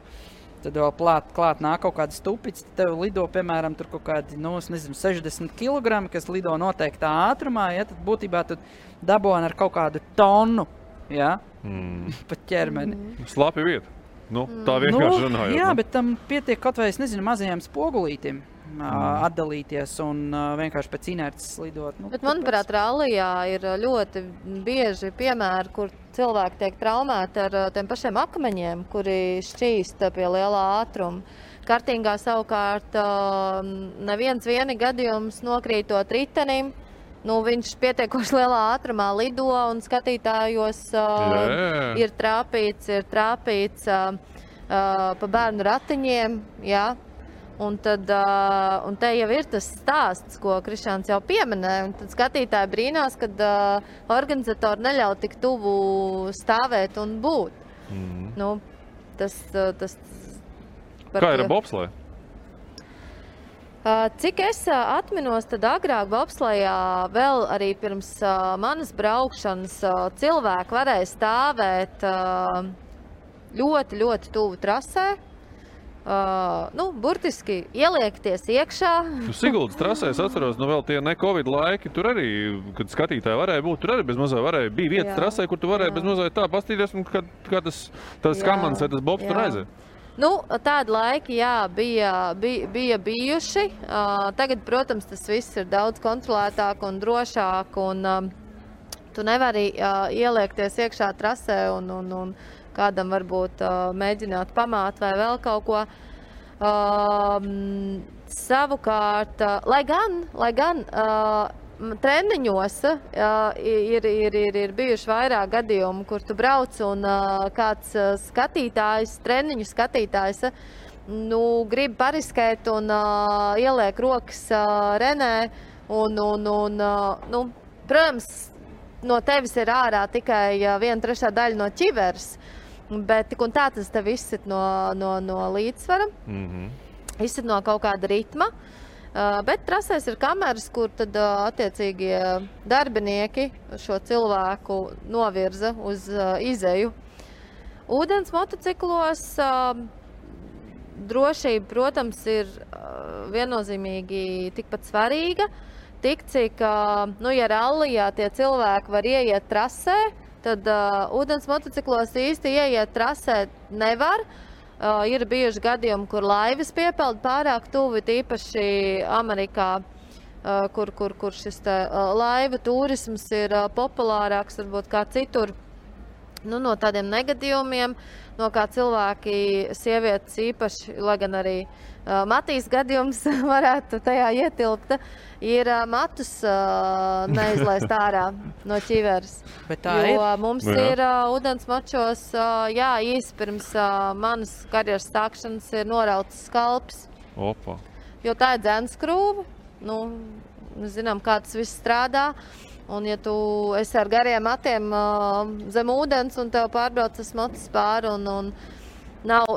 tad vēl klāt nāk kaut kāda stupica, tad tev lido, piemēram, tur kaut kādi, 60 kilogrami, kas lido noteiktā ātrumā, ja, tad būtībā tu daboni ar kaut kādu tonu, ja, pat ķermeni. Slapi vieta. Tā vienkārši runājot. Jā, bet tam pietiek kaut vai, mazajām spogulītim atdalīties un vienkārši pēc inerces lidot. Bet, manuprāt, rallijā ir ļoti bieži piemēri, kur cilvēki tiek traumēti ar tiem pašiem akmeņiem, kuri šķīst pie lielā ātruma. Kartingā savukārt neviens gadījums nokrītot ritenim, viņš pietiekoši lielā ātrumā lido un skatītājos ir trāpīts pa bērnu ratiņiem, jā. Un te jau ir tas stāsts, ko Krišāns jau pieminēja, un tad skatītāji brīnās, kad organizatori neļauj tik tuvu stāvēt un būt. Kā ir ar bobsleju? Cik es atminos, tad agrāk bobslejā vēl arī pirms manas braukšanas cilvēki varēja stāvēt ļoti, ļoti tuvu trasē. Burtiski ieliekties iekšā. Siguldas trasē, es atceros, vēl tie ne-covid laiki, tur arī, kad skatītāji varēja būt, tur arī bez mazai varēja, bija vietas trasē, kur tu varēja bez mazai tā pastīties, un kā tas kamans vai tas bobs tur aizēja. Tādi laiki, jā, bija bijuši. Tagad, protams, tas viss ir daudz kontrolētāk un drošāk, un tu nevari ieliekties iekšā trasē un kādam varbūt mēģināt pamāt vai vēl kaut ko. Savukārt, lai gan treniņos ir bijuši vairāk gadījumu, kur tu brauc un kāds skatītājs, treniņu skatītājs, grib pariskēt un ieliek rokas Renē un protams, no tevis ir ārā tikai 1/3 daļa no ķiveres, bet tik un tā tas tev izsit no līdzsvara, izsit no kaut kāda ritma. Bet trasēs ir kameras, kur tad attiecīgie darbinieki šo cilvēku novirza uz izeju. Ūdens motociklos drošība, protams, ir viennozīmīgi tikpat svarīga. Tik cik, ja rallijā tie cilvēki var ieiet trasē, tad ūdens motociklos īsti ieiet trasē nevar. Ir bijuši gadījumi, kur laivas piepeld pārāk tuvi, tīpaši Amerikā, kur šis laiva turisms ir populārāks, varbūt kā citur. No tādiem negadījumiem, no kā cilvēki, sievietes īpaši, lai gan arī Matīs gadījums varētu tajā ietilpt, ir matus neizlaist ārā no ķiveres. Jo mums ir ūdens mačos, īsi pirms manas karjeras stākšanas ir norauts skalps. Opa. Jo tā ir dzenskrūve, mēs zinām, kā tas viss strādā. Un ja tu esi ar gariem matiem zem ūdens un tev pārbrauc tas motis pāri un nav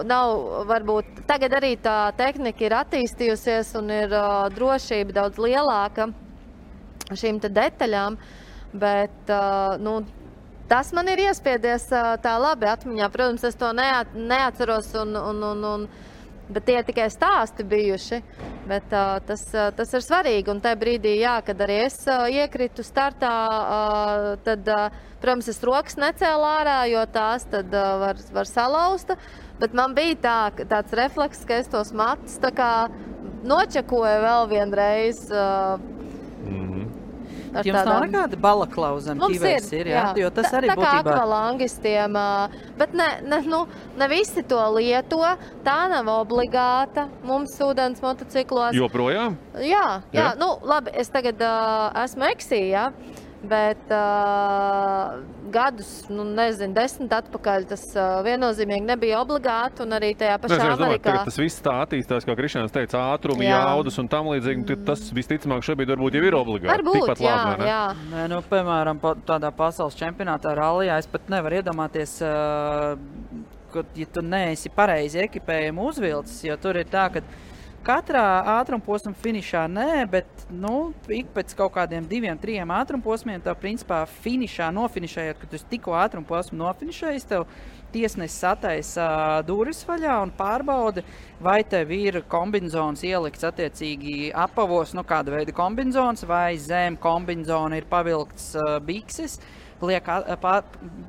varbūt, tagad arī tā tehnika ir attīstījusies un ir drošība daudz lielāka šīm te detaļām, bet tas man ir iespiedies tā labi atmiņā. Protams, es to neatceros bet tie tikai stāsti bijuši, bet tas ir svarīgi. Un tajā brīdī, kad arī es iekritu startā, tad, protams, es rokas necēlu ārā, jo tās tad var salausta. Bet man bija tāds refleks, ka es tos matus tā kā nočakoju vēl vienreiz. Jums nav nekāda balaklauza zem ķiveres ir, jā? Jo tas arī būtībā... Tā kā akvalangistiem, bet ne visi to lieto, tā nav obligāta mums ūdens motociklos. Joprojām? Jā. Labi, es tagad esmu eksī, jā, bet gadus, 10 atpakaļ tas viennozīmīgi nebija obligāti un arī tajā pašā Amerikā. Tas viss tā attīstās, kā Krišjāns teica, ātrumi, jaudas un tam līdzīgi, tas visticamāk šobrīd varbūt jau ir obligāti. Varbūt, jā. Nē, piemēram, tādā pasaules čempionātā rallijā es pat nevaru iedomāties, ja tu neesi pareizi ekipējumu uzvilcis, jo tur ir tā, ka katrā ātrumposma finišā bet ik pēc kaut kādiem 2-3 ātrumposmiem tev principā nofinišējot, kad tu tikko ātrumposmu nofinišējis, tev tiesnesis sataisa durvis vaļā un pārbauda, vai tev ir kombinzons ielikts attiecīgi apavos, kāda veida kombinzons, vai zem kombinzona ir pavilkts bikses,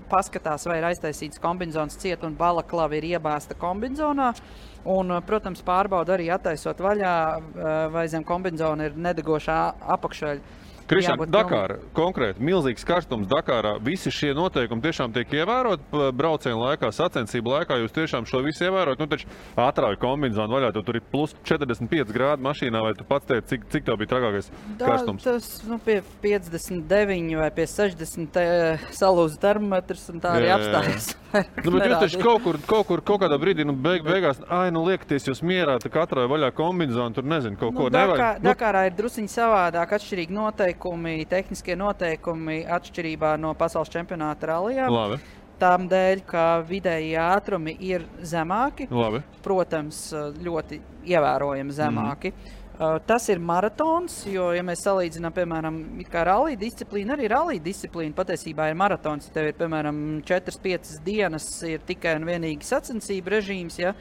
paskatās, vai ir aiztaisīts kombinzons ciet un balaklava ir iebāzta kombinzonā. Un, protams, pārbauda arī attaisot vaļā, vai zem kombinzona ir nedegošā apakšveļa. Krišjān, Dakāra, konkrēti, milzīgs karstums Dakārā, visi šie noteikumi tiešām tiek ievērot braucienu laikā, sacensību laikā, jūs tiešām šo visu ievērot, taču ātrāju kombinzonu vaļā, tur ir plus 45 grādi mašīnā, vai tu pats teici, cik tev bija trakākais karstums? Tas, pie 59 vai pie 60 salūza termometrs un tā arī apstājas. Bet jūs taču kaut kādā brīdī, beigās, liekaties jūs mierā, tā atrāju vaļā kombinzonu, tur nezinu, kaut ko nevajag. Dakārā ir drusiņi savādāk, atšķirīgi noteikumi, tehniskie noteikumi atšķirībā no pasaules čempionāta rallijā. Labi. Tām dēļ, ka vidēji ātrumi ir zemāki. Labi. Protams, ļoti ievērojami zemāki. Tas ir maratons, jo, ja mēs salīdzinām, piemēram, kā rallija disciplīna, arī rallija disciplīna patiesībā ir maratons. Ja tev ir, piemēram, 4-5 dienas ir tikai un vienīgi sacensību režīms, ja,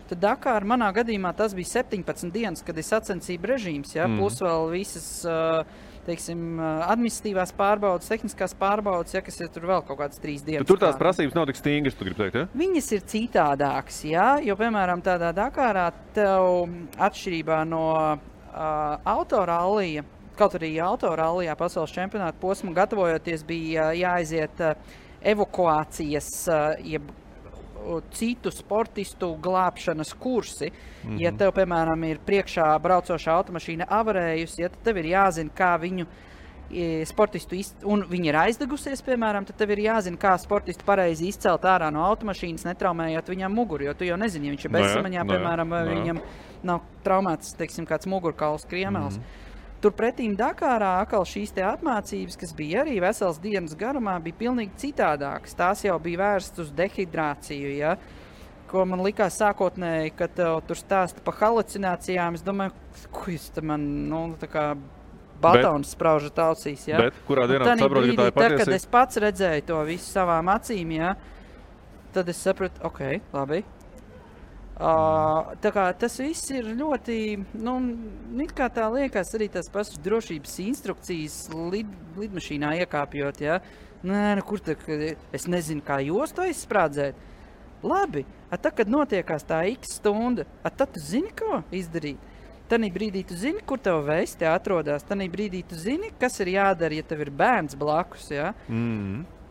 tad Dakāra manā gadījumā tas bija 17 dienas, kad ir sacensību režīms, ja, plus vēl visas, administratīvās pārbaudas, tehniskās pārbaudas, ja, kas ir tur vēl kaut kādas 3 dienas. Tur tās prasības nav tik stingras, tu gribi teikt, ja? Viņas ir citādākas, ja, jo, piemēram, tādā Dakārā tev atšķirībā no autorallija, kaut arī autorallijā pasaules čempionāta posmu gatavojoties bija jāaiziet evakuācijas, jeb citu sportistu glābšanas kursi. Ja tev, piemēram, ir priekšā braucošā automašīna avarējusi, ja tev ir jāzina, kā viņu sportistu un viņi ir aizdegusies, piemēram, tad tev ir jāzina, kā sportistu pareizi izcelt ārā no automašīnas, netraumējot viņam muguru, jo tu jau nezini, ja viņš ir bezsamaņā, piemēram, vai viņam nav traumēts, teiksim, kāds mugurkauls kriemels. Turpretīm Dakārā atkal šīs te apmācības, kas bija arī vesels dienas garumā, bija pilnīgi citādākas. Tās jau bija vērstas uz dehidrāciju, ja? Ko man likās sākotnēji, kad tur stāsta pa halucinācijām. Es domāju, ko jūs te man, tā kā batons spraužat ausīs, ja? Bet kurā dienā saproti, ka tā ir patiesība? Kad es pats redzēju to visu savām acīm, ja, tad es sapratu, ok, labi. Tā kā tas viss ir ļoti, it kā tā liekas arī tās pašas drošības instrukcijas lidmašīnā iekāpjot, ja? Nē, kur tā, es nezinu, kā jūs to izsprādzēt. Labi, tad, kad notiekās tā x stunda, tad tu zini, ko izdarīt. Tanī brīdī tu zini, kur tev vesti atrodās. Tanī brīdī tu zini, kas ir jādara, ja tev ir bērns blakus, ja?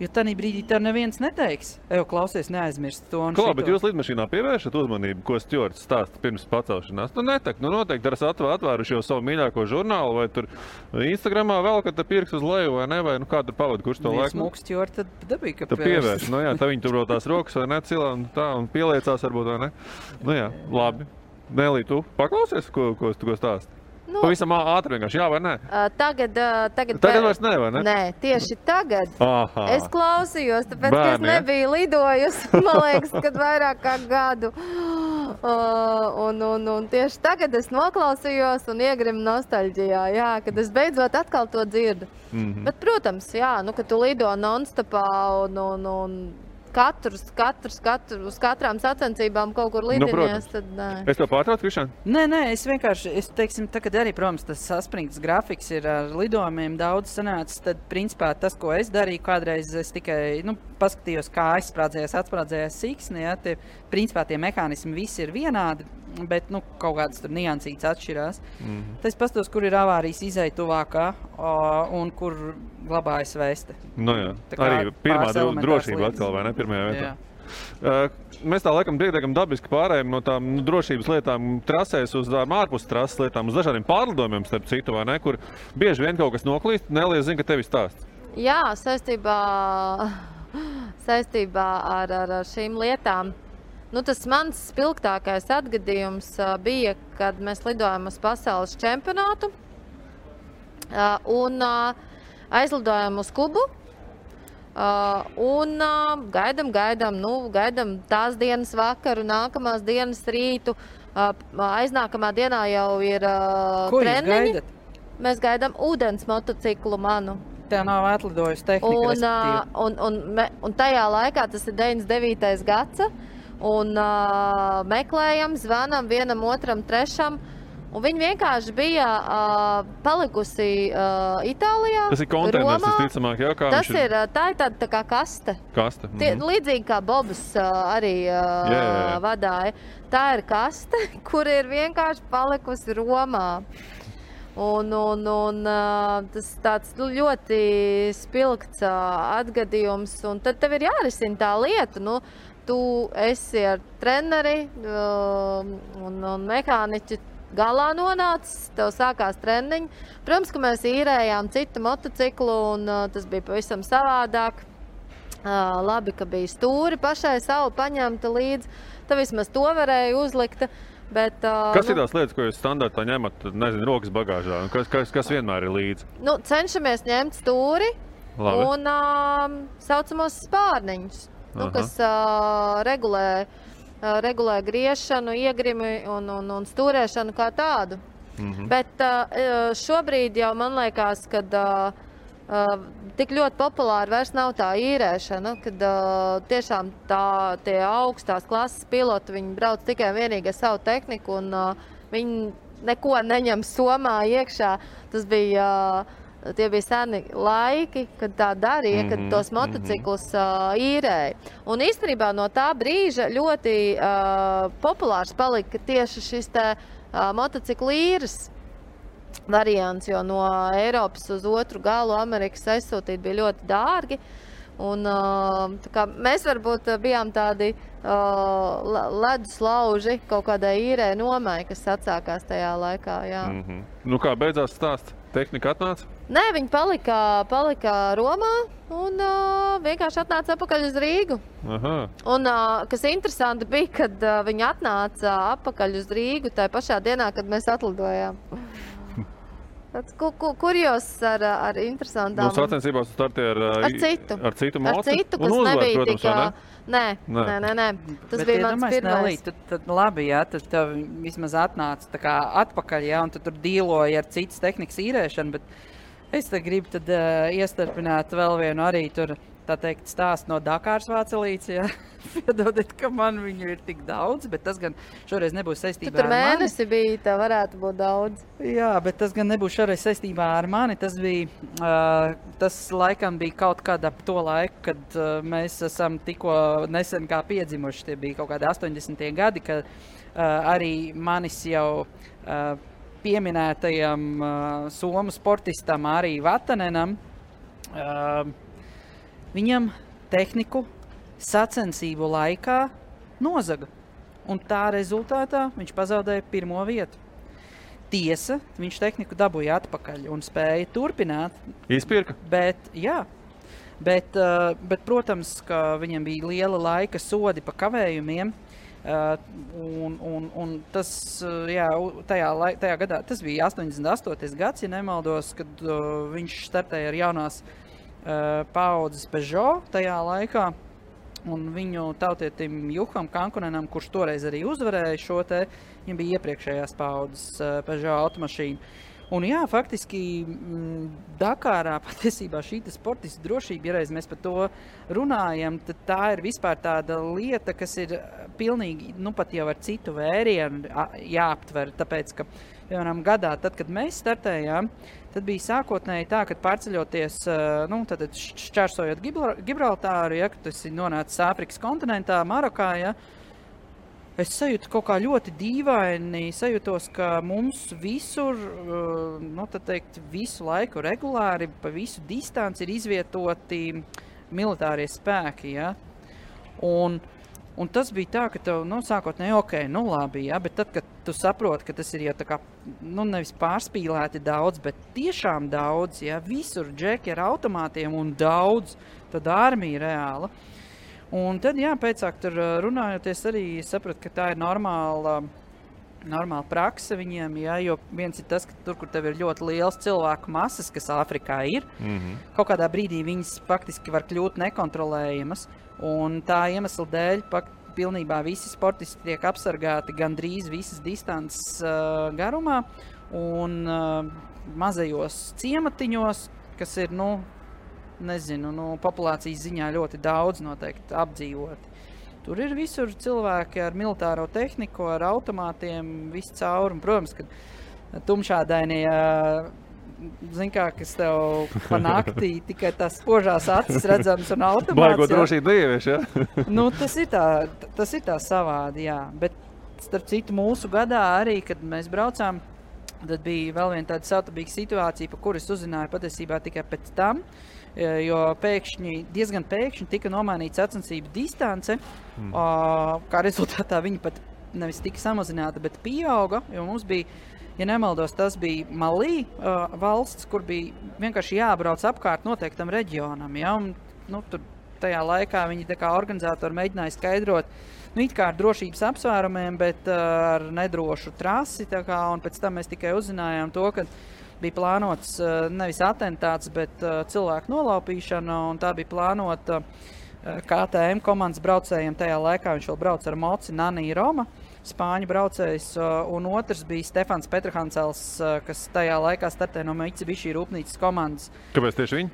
Jo tanī brīdī tev neviens neteiks. Klausies, neaizmirst to un šito. Bet jūs lidmašīnā pievēršat uzmanību, ko stjords stāsta pirms pacelšanās? Noteikti ar atvēruši jau savu mīļāko žurnālu vai tur Instagramā vēl, kad te pirks uz leju vai ne, vai kā tur pavada, kurš to laiku? Smūks stjords, tad dabīgi, ka pievērš. Tā viņi tur tās rokas vai ne cilā un tā un pieliecās varbūt vai ne. Labi. Nelī, tu paklausies, ko stāsti? Pavisam ātri vienkārši, jā vai nē? Tagad vairs ne, vai ne? Nē, tieši tagad. Es klausījos, tāpēc, ka es nebiju lidojusi, man liekas, kad vairāk kā gadu. Un tieši tagad es noklausījos un iegrimu nostalģijā, jā, kad es beidzot atkal to dzirdu. Bet, protams, jā, kad tu lido non-stopā un uz katrām sacensībām kaut kur lidinies, tad nē. Es tev pārtraucu, Krišān? Nē, es vienkārši, teiksim, tagad arī, protams, tas saspringts grafiks ir ar lidojumiem daudz sanācis, tad, principā, tas, ko es darīju, kādreiz es tikai, paskatījos, kā atsprādzējās siksni, ja, principā tie mehānismi visi ir vienādi, bet, kaut kādas tur niansītas atšķirās. Tas pastos, kur ir avārijas izēja tuvākā un kur glabājas vēste. Jā, arī pirmā drošība atkal, vai ne, pirmajā vietā. Mēs tā laikam diezgan dabiski pārējām no tām drošības lietām trasēs uz ārpus trases lietām, uz dažādiem pārlidojumiem, starp citu, vai ne, kur bieži vien kaut kas noklīst, Nelija zina, ka tevi stāsts. Jā, saistībā ar šīm lietām. Tas mans spilgtākais atgadījums bija, kad mēs lidojām uz pasaules čempionātu un aizlidojām uz Kubu un gaidām tās dienas vakaru, nākamās dienas rītu, aiznākamā dienā jau ir treniņi. Mēs gaidām ūdens motociklu manu. Tā nav atlidojusi tehnika, respektīvi. Un tajā laikā, tas ir 99. gads, un meklējam, zvanam vienam, otram, trešam, un viņi vienkārši bija palikusi Itālijā, Tas ir konteiners, visticamāk, jā, kā tas ir. Tā ir tāda tā kā kaste. Līdzīgi kā Bobs arī vadāja. Tā ir kaste, kur ir vienkārši palikusi Romā. Un tas tāds ļoti spilgts atgadījums, un tad tev ir jārisina tā lieta, tu esi ar treneri un mehāniķi galā nonācis, tev sākās treniņi. Protams, ka mēs īrējām citu motociklu, un tas bija pavisam savādāk. Labi, ka bija stūri pašai savu paņemta līdzi, tad vismaz to varēja uzlikt. Bet, kas ir tās lietas, ko jūs standartā ņemat, rokas bagāžā? Kas vienmēr ir līdzi? Cenšamies ņemt stūri un saucamos spārniņus, kas regulē griešanu, iegrimi un stūrēšanu kā tādu. Bet šobrīd jau man liekas, kad tik ļoti populāri vairs nav tā īrēšana, kad tiešām tie augstās klases piloti, viņi brauc tikai vienīgi ar savu tehniku un viņi neko neņem somā iekšā. Tie bija seni laiki, kad tā darīja, kad tos motociklus īrēja. Un īstenībā no tā brīža ļoti populārs palika tieši šis motociklu īres variants, jo no Eiropas uz otru galu Amerikas aizsūtīt bija ļoti dārgi. Un, tā kā mēs varbūt bijām tādi ledus lauži kaut kādai īrē nomai, kas atsākās tajā laikā. Jā. Nu kā beidzās stāsts? Tehnika atnāca? Nē, viņi palika Romā un vienkārši atnāca atpakaļ uz Rīgu. Aha. Un, kas interesanti bija, kad viņi atnāca atpakaļ uz Rīgu tajā pašā dienā, kad mēs atlidojām. Tāds kurjos ar interesantām... Nu, sacensībās tu starti ar citu moci? Ar citu, kas uzvar, nebija protams, Nē. Tas bija mans pirmais. Tad labi, jā, tad tev vismaz atnāca tā kā atpakaļ, jā, un tu tur dīloji ar citas tehnikas īrēšanu, bet es te gribu tad iestarpināt vēl vienu arī tur, tā teikt, stāstu no Dakāras Vācelītes, jā. Piedodiet, ka man viņu ir tik daudz, bet tas gan šoreiz nebūs saistībā ar mani. Tu tur mēnesi bija, tā varētu būt daudz. Jā, bet tas gan nebūs šoreiz saistībā ar mani. Tas bija, tas laikam bija kaut kad ap to laiku, kad mēs esam tikko nesen kā piedzimuši. Tie bija kaut kādi 80. gadi, kad arī manis jau pieminētajam somu sportistam arī Vatanenam, viņam tehniku sacensību laikā nozaga. Un tā rezultātā viņš pazaudēja 1. vietu. Tiesa, viņš tehniku dabūja atpakaļ un spēja turpināt. Izpirka? Bet protams, ka viņam bija liela laika sodi pa kavējumiem. Un tas, jā, tajā gadā, tas bija 88. gads, ja nemaldos, kad viņš startēja ar jaunās paaudzes Peugeot tajā laikā. Un viņu tautietim Juham Kankunenam, kurš toreiz arī uzvarēja šo te, viņam bija iepriekšējās paaudzes Peugeot automašīna. Un jā, faktiski Dakārā patiesībā šī sportista drošība, ja reiz mēs par to runājam, tad tā ir vispār tāda lieta, kas ir pilnīgi, nu pat jau ar citu vērienu jāaptver, tāpēc, ka piemēram gadā, tad, kad mēs startējām, tad bija sākotnēji tā, kad pārceļoties, nu, tad šķērsojot Gibraltāru, ja, kad tas ir nonācis Āfrikas kontinentā, Marokā, ja, es sajūtu kaut kā ļoti dīvaini, sajūtos, ka mums visur, nu, tad teikt, visu laiku regulāri, pa visu distanci ir izvietoti militārie spēki, ja, un tas bija tā, ka tev, nu, sākotnēji, ok, nu labi, ja, bet tad, kad tu saproti, ka tas ir jau tā kā, nu, nevis pārspīlēti daudz, bet tiešām daudz, ja, visur džeki ar automātiem un daudz, tad armija reāla. Un tad, jā, pēcāk tur runājoties arī sapratu, ka tā ir normāla prakse viņiem, jā, jo viens ir tas, ka tur, kur tev ir ļoti liels cilvēku masas, kas Āfrikā ir, kaut kādā brīdī viņas faktiski var kļūt nekontrolējamas, un tā iemesla dēļ pilnībā visi sportisti tiek apsargāti gandrīz visas distances garumā, un mazajos ciematiņos, kas ir, nu, nezinu, populācijas ziņā ļoti daudz noteikti apdzīvoti. Tur ir visur cilvēki ar militāro tehniku, ar automātiem, viss cauri. Un, protams, ka tumšādainie, zin kā, kas tev pa naktī tikai tās spožās acis redzams un automāts. Baigo drošību dievieši, ja? Nu, tas ir tā savādi, jā. Bet, starp citu, mūsu gadā arī, kad mēs braucām, tad bija vēl viena tāda savtabīga situācija, pa kuras uzzināju patiesībā tikai pēc tam, jo diezgan pēkšņi tika nomainīta sacensību distance, kā rezultātā viņa pat nevis tika samazināta, bet pieauga, jo mums bija, ja nemaldos, tas bija Malī valsts, kur bija vienkārši jābrauc apkārt noteiktam reģionam, ja, un, nu, tur tajā laikā viņi tā kā organizatori mēģināja skaidrot, nu, it kā ar drošības apsvērumiem, bet ar nedrošu trasi, tā kā, un pēc tam mēs tikai uzzinājām to, ka bija plānots nevis atentāts, bet cilvēku nolaupīšana, un tā bija plānota KTM komandas braucējiem tajā laikā. Viņš vēl brauc ar moci Nani Roma, spāņu braucējs, un otrs bija Stefans Petrahancels, kas tajā laikā startē no Mitsubishi rūpnīcas komandas. Kāpēc tieši viņi?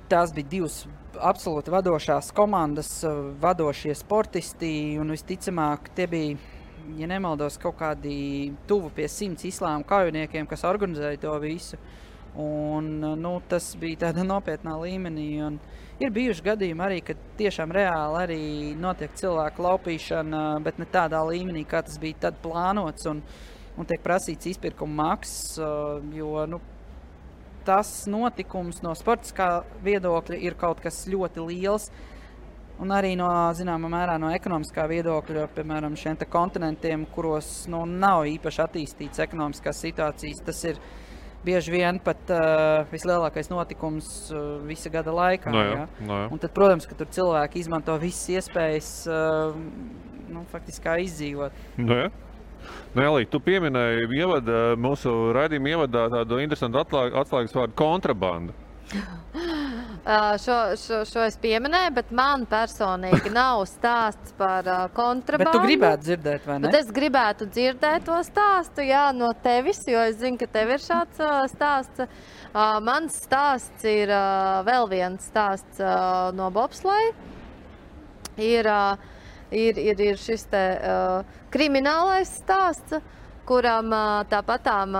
Tās bija divas absolūti vadošās komandas, vadošie sportisti, un visticamāk tie bija, ja nemaldos, kaut kādi tuvu pie 100 islāma kaujiniekiem, kas organizēja to visu. Un, nu, tas bija tāda nopietnā līmenī. Un ir bijuši gadījumi arī, kad tiešām reāli arī notiek cilvēku laupīšana, bet ne tādā līmenī, kā tas bija tad plānots un tiek prasīts izpirkuma maksas, jo, nu, tas notikums no sportiskā viedokļa ir kaut kas ļoti liels. Un arī no, zināmā mērā, no ekonomiskā viedokļa, piemēram, šiem te kontinentiem, kuros nav īpaši attīstīts ekonomiskās situācijas, tas ir bieži vien pat vislielākais notikums visa gada laikā. No jā. Un tad, protams, ka tur cilvēki izmanto visas iespējas faktiski kā izdzīvot. No jā. Elīte, tu pieminēji mūsu raidījuma ievadā tādu interesantu atslēgas vārdu kontrabanda. Šo es pieminēju, bet man personīgi nav stāsts par kontrabandu. Bet tu gribētu dzirdēt, vai ne? Bet es gribētu dzirdēt to stāstu, jā, no tevis, jo es zinu, ka tev ir šāds stāsts. Mans stāsts ir vēl viens stāsts no bobsleja. Ir šis te kriminālais stāsts, kuram tāpatām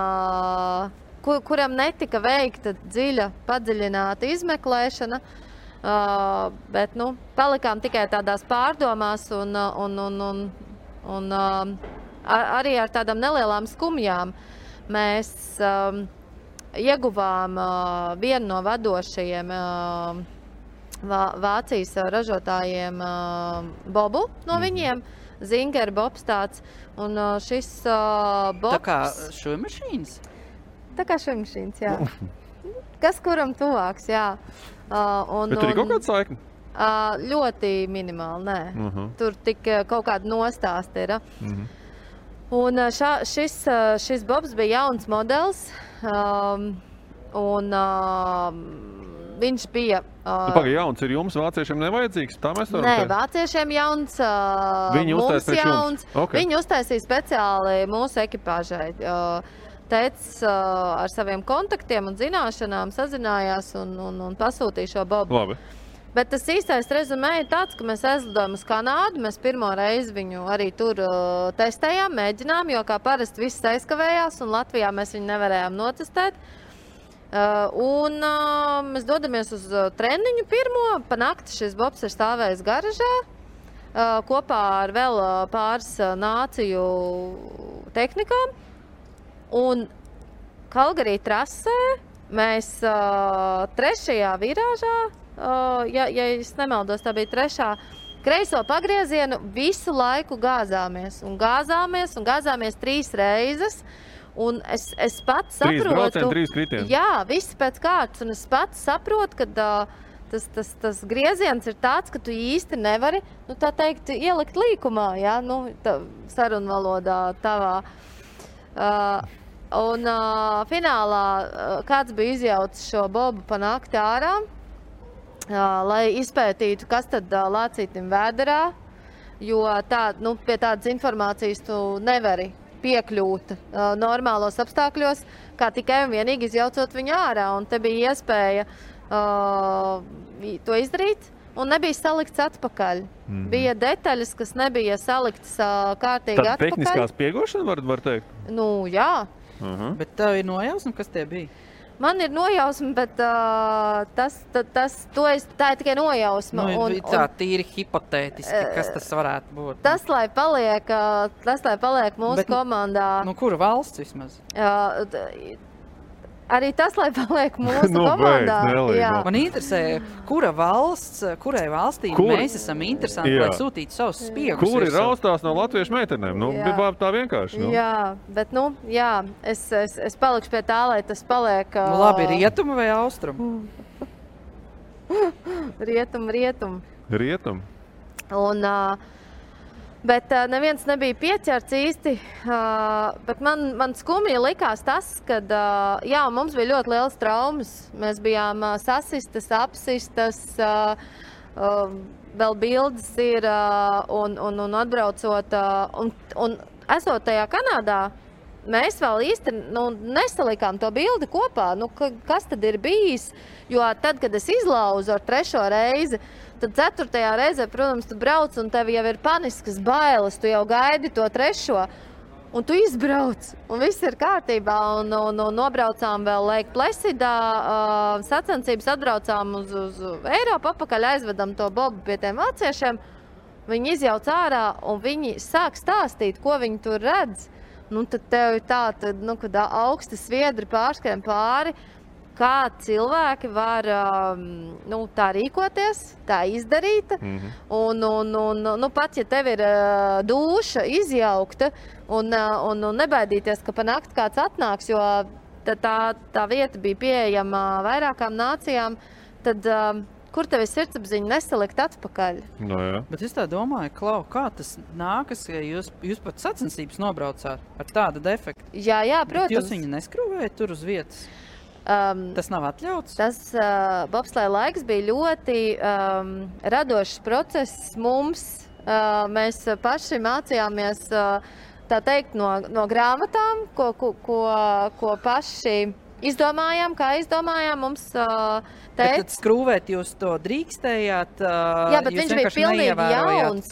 kuram netika veikta dziļa, padziļināta izmeklēšana, bet, palikām tikai tādās pārdomās un arī ar tādām nelielām skumjām. Mēs ieguvām vienu no vadošajiem Vācijas ražotājiem bobu no viņiem, Zinger bobs tāds, un šis bobs... Tā kā šujmašīnas? Tā kā šujmašīnas, jā. Kas kuram tuvāks, jā. Bet tur ir kaut kāda saikne? Ļoti minimāli, nē. Tur tik kaut kāda nostāsta ir. Un šis bobs bija jauns modelis, un viņš bija... Pagaid, jauns ir jums, vāciešiem nevajadzīgs? Tā mēs varam teikt? Nē, vāciešiem jauns, mums jauns. Okay. Viņi uztaisīja speciāli mūsu ekipāžai. Tētis ar saviem kontaktiem un zināšanām sazinājās un pasūtīja šo bobu. Labi. Bet tas īstais rezumē ir tāds, ka mēs aizlidojam uz Kanādu. Mēs pirmo reizi viņu arī tur testējām, mēģinām, jo kā parasti viss aizkavējās un Latvijā mēs viņu nevarējām notestēt. Mēs dodamies uz treniņu pirmo. Pa nakti šis bobs ir stāvējis garažā kopā ar vēl pāris nāciju tehnikām. Un Kalgarī trasē mēs trešajā virāžā, ja es nemaldos, tā bija trešā, kreiso pagriezienu visu laiku gāzāmies. Un gāzāmies 3 reizes. Un es pats saprotu... 3 braucieni, 3 kritieni. Jā, viss pēc kārtas. Un es pats saprotu, ka tas grieziens ir tāds, ka tu īsti nevari, tā teikt, ielikt līkumā, jā, sarunvalodā tavā. Finālā kāds bija izjaucis šo bobu pa nakti ārā, lai izpētītu, kas tad lācītim vēderā, jo pie tādas informācijas tu nevari piekļūt normālos apstākļos, kā tikai un vienīgi izjaucot viņu ārā. Un te bija iespēja to izdarīt. Un nebija salikts atpakaļ. Bija detaļas, kas nebija saliktas kārtīgi atpakaļ. Tad tehniskās piegošana var teikt? Jā. Bet tev ir nojausma, kas tie bija? Man ir nojausma, bet tā ir tikai nojausma. Tā tīri hipotētiski, kas tas varētu būt? Tas, lai paliek mūsu komandā. Kura valsts vismaz? Arī tas, lai paliek mūsu komandā. Man interesē, kurai valstī mēs esam interesanti, lai sūtītu savus spiegus. Kuri raustās no latviešu meitenēm? Bija tā vienkārši. Jā, bet es palikšu pie tā, lai tas paliek... Labi, rietumu vai austrumu? Rietumu. Un... Bet neviens nebija pieķerts īsti, bet man skumji likās tas, kad mums bija ļoti liels traumas. Mēs bijām sasistas, apsistas, vēl bildes ir un atbraucot. Un esot tajā Kanādā, mēs vēl īsti nesalikām to bildi kopā. Kas tad ir bijis? Jo tad, kad es izlauzu ar 3. reizi, tad 4. reizē, protams, tu brauc un tev jau ir paniskas bailes, tu jau gaidi to 3. Un tu izbrauc, un viss ir kārtībā, un nobraucām vēl Lake Placidā, sacensības atbraucām uz Eiropu, atpakaļ aizvedam to bobu pie tiem vāciešiem. Viņi izjauc ārā, un viņi sāk stāstīt, ko viņi tur redz. Tad tev ir kad augsti sviedri pārskrien pāri, kā cilvēki var tā rīkoties, tā izdarīt. Un pat, ja tev ir dūša izjaukta un nebaidīties, ka pa nakti kāds atnāks, jo tā vieta bija pieejama vairākām nācijām, tad kur tev ir sirdsapziņa nesalikt atpakaļ? No, jā. Bet es tā domāju, Klau, kā tas nākas, ja jūs pat sacensības nobraucāt ar tādu defektu? Jā, protams. Bet jūs viņu neskrūvējat tur uz vietas? Tas nav atļauts? Tas bobsleja laiks bija ļoti radošs process mums. Mēs paši mācījāmies, tā teikt, no grāmatām, ko paši izdomājām, mums teica. Tad skrūvēt jūs to drīkstējāt? Jā, bet viņš bija pilnīgi jauns.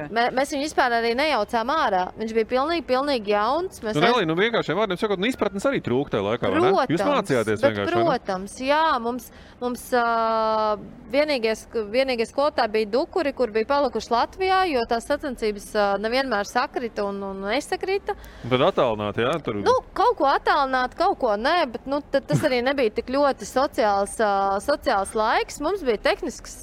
Mēs viņu vispār arī nejaucām ārā. Viņš bija pilnīgi jauns. Nelī, vienkāršiem vārdiem sakot, izpratnes arī trūk tajā laikā, vai ne? Jūs mācījāties vienkārši, vai ne? Protams, jā, mums vienīgie skolotāji bija dukuri, kur bija palikuši Latvijā, jo tās sacensības nevienmēr sakrita un nesakrita. Tad attālināt, jā? Tur... Kaut ko attālināt, kaut ko nē, bet tas arī nebija tik ļoti sociāls laiks. Mums bija tehnisks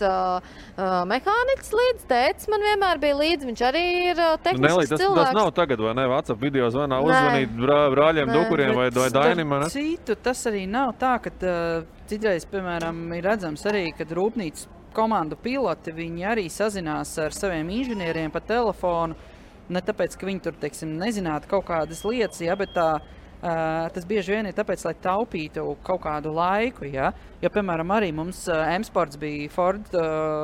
mehāniķis līdz, tētis man vienmēr bija līdz, viņš arī ir tehnisks cilvēks. Tas nav tagad, vai ne? WhatsApp video zvanā uzvanīt brāļiem, dukuriem vai Dainim, vai ne? Citu, tas arī nav tā, ka citreiz, piemēram, ir redzams arī, kad rūpnīcas komandu piloti, viņi arī sazinās ar saviem inženieriem pa telefonu, ne tāpēc, ka viņi tur, teiksim, nezinātu kaut kādas lietas, ja, bet tas bieži vien ir tāpēc, lai taupītu kaut kādu laiku, ja? Jo, piemēram, arī mums M-Sports bija Ford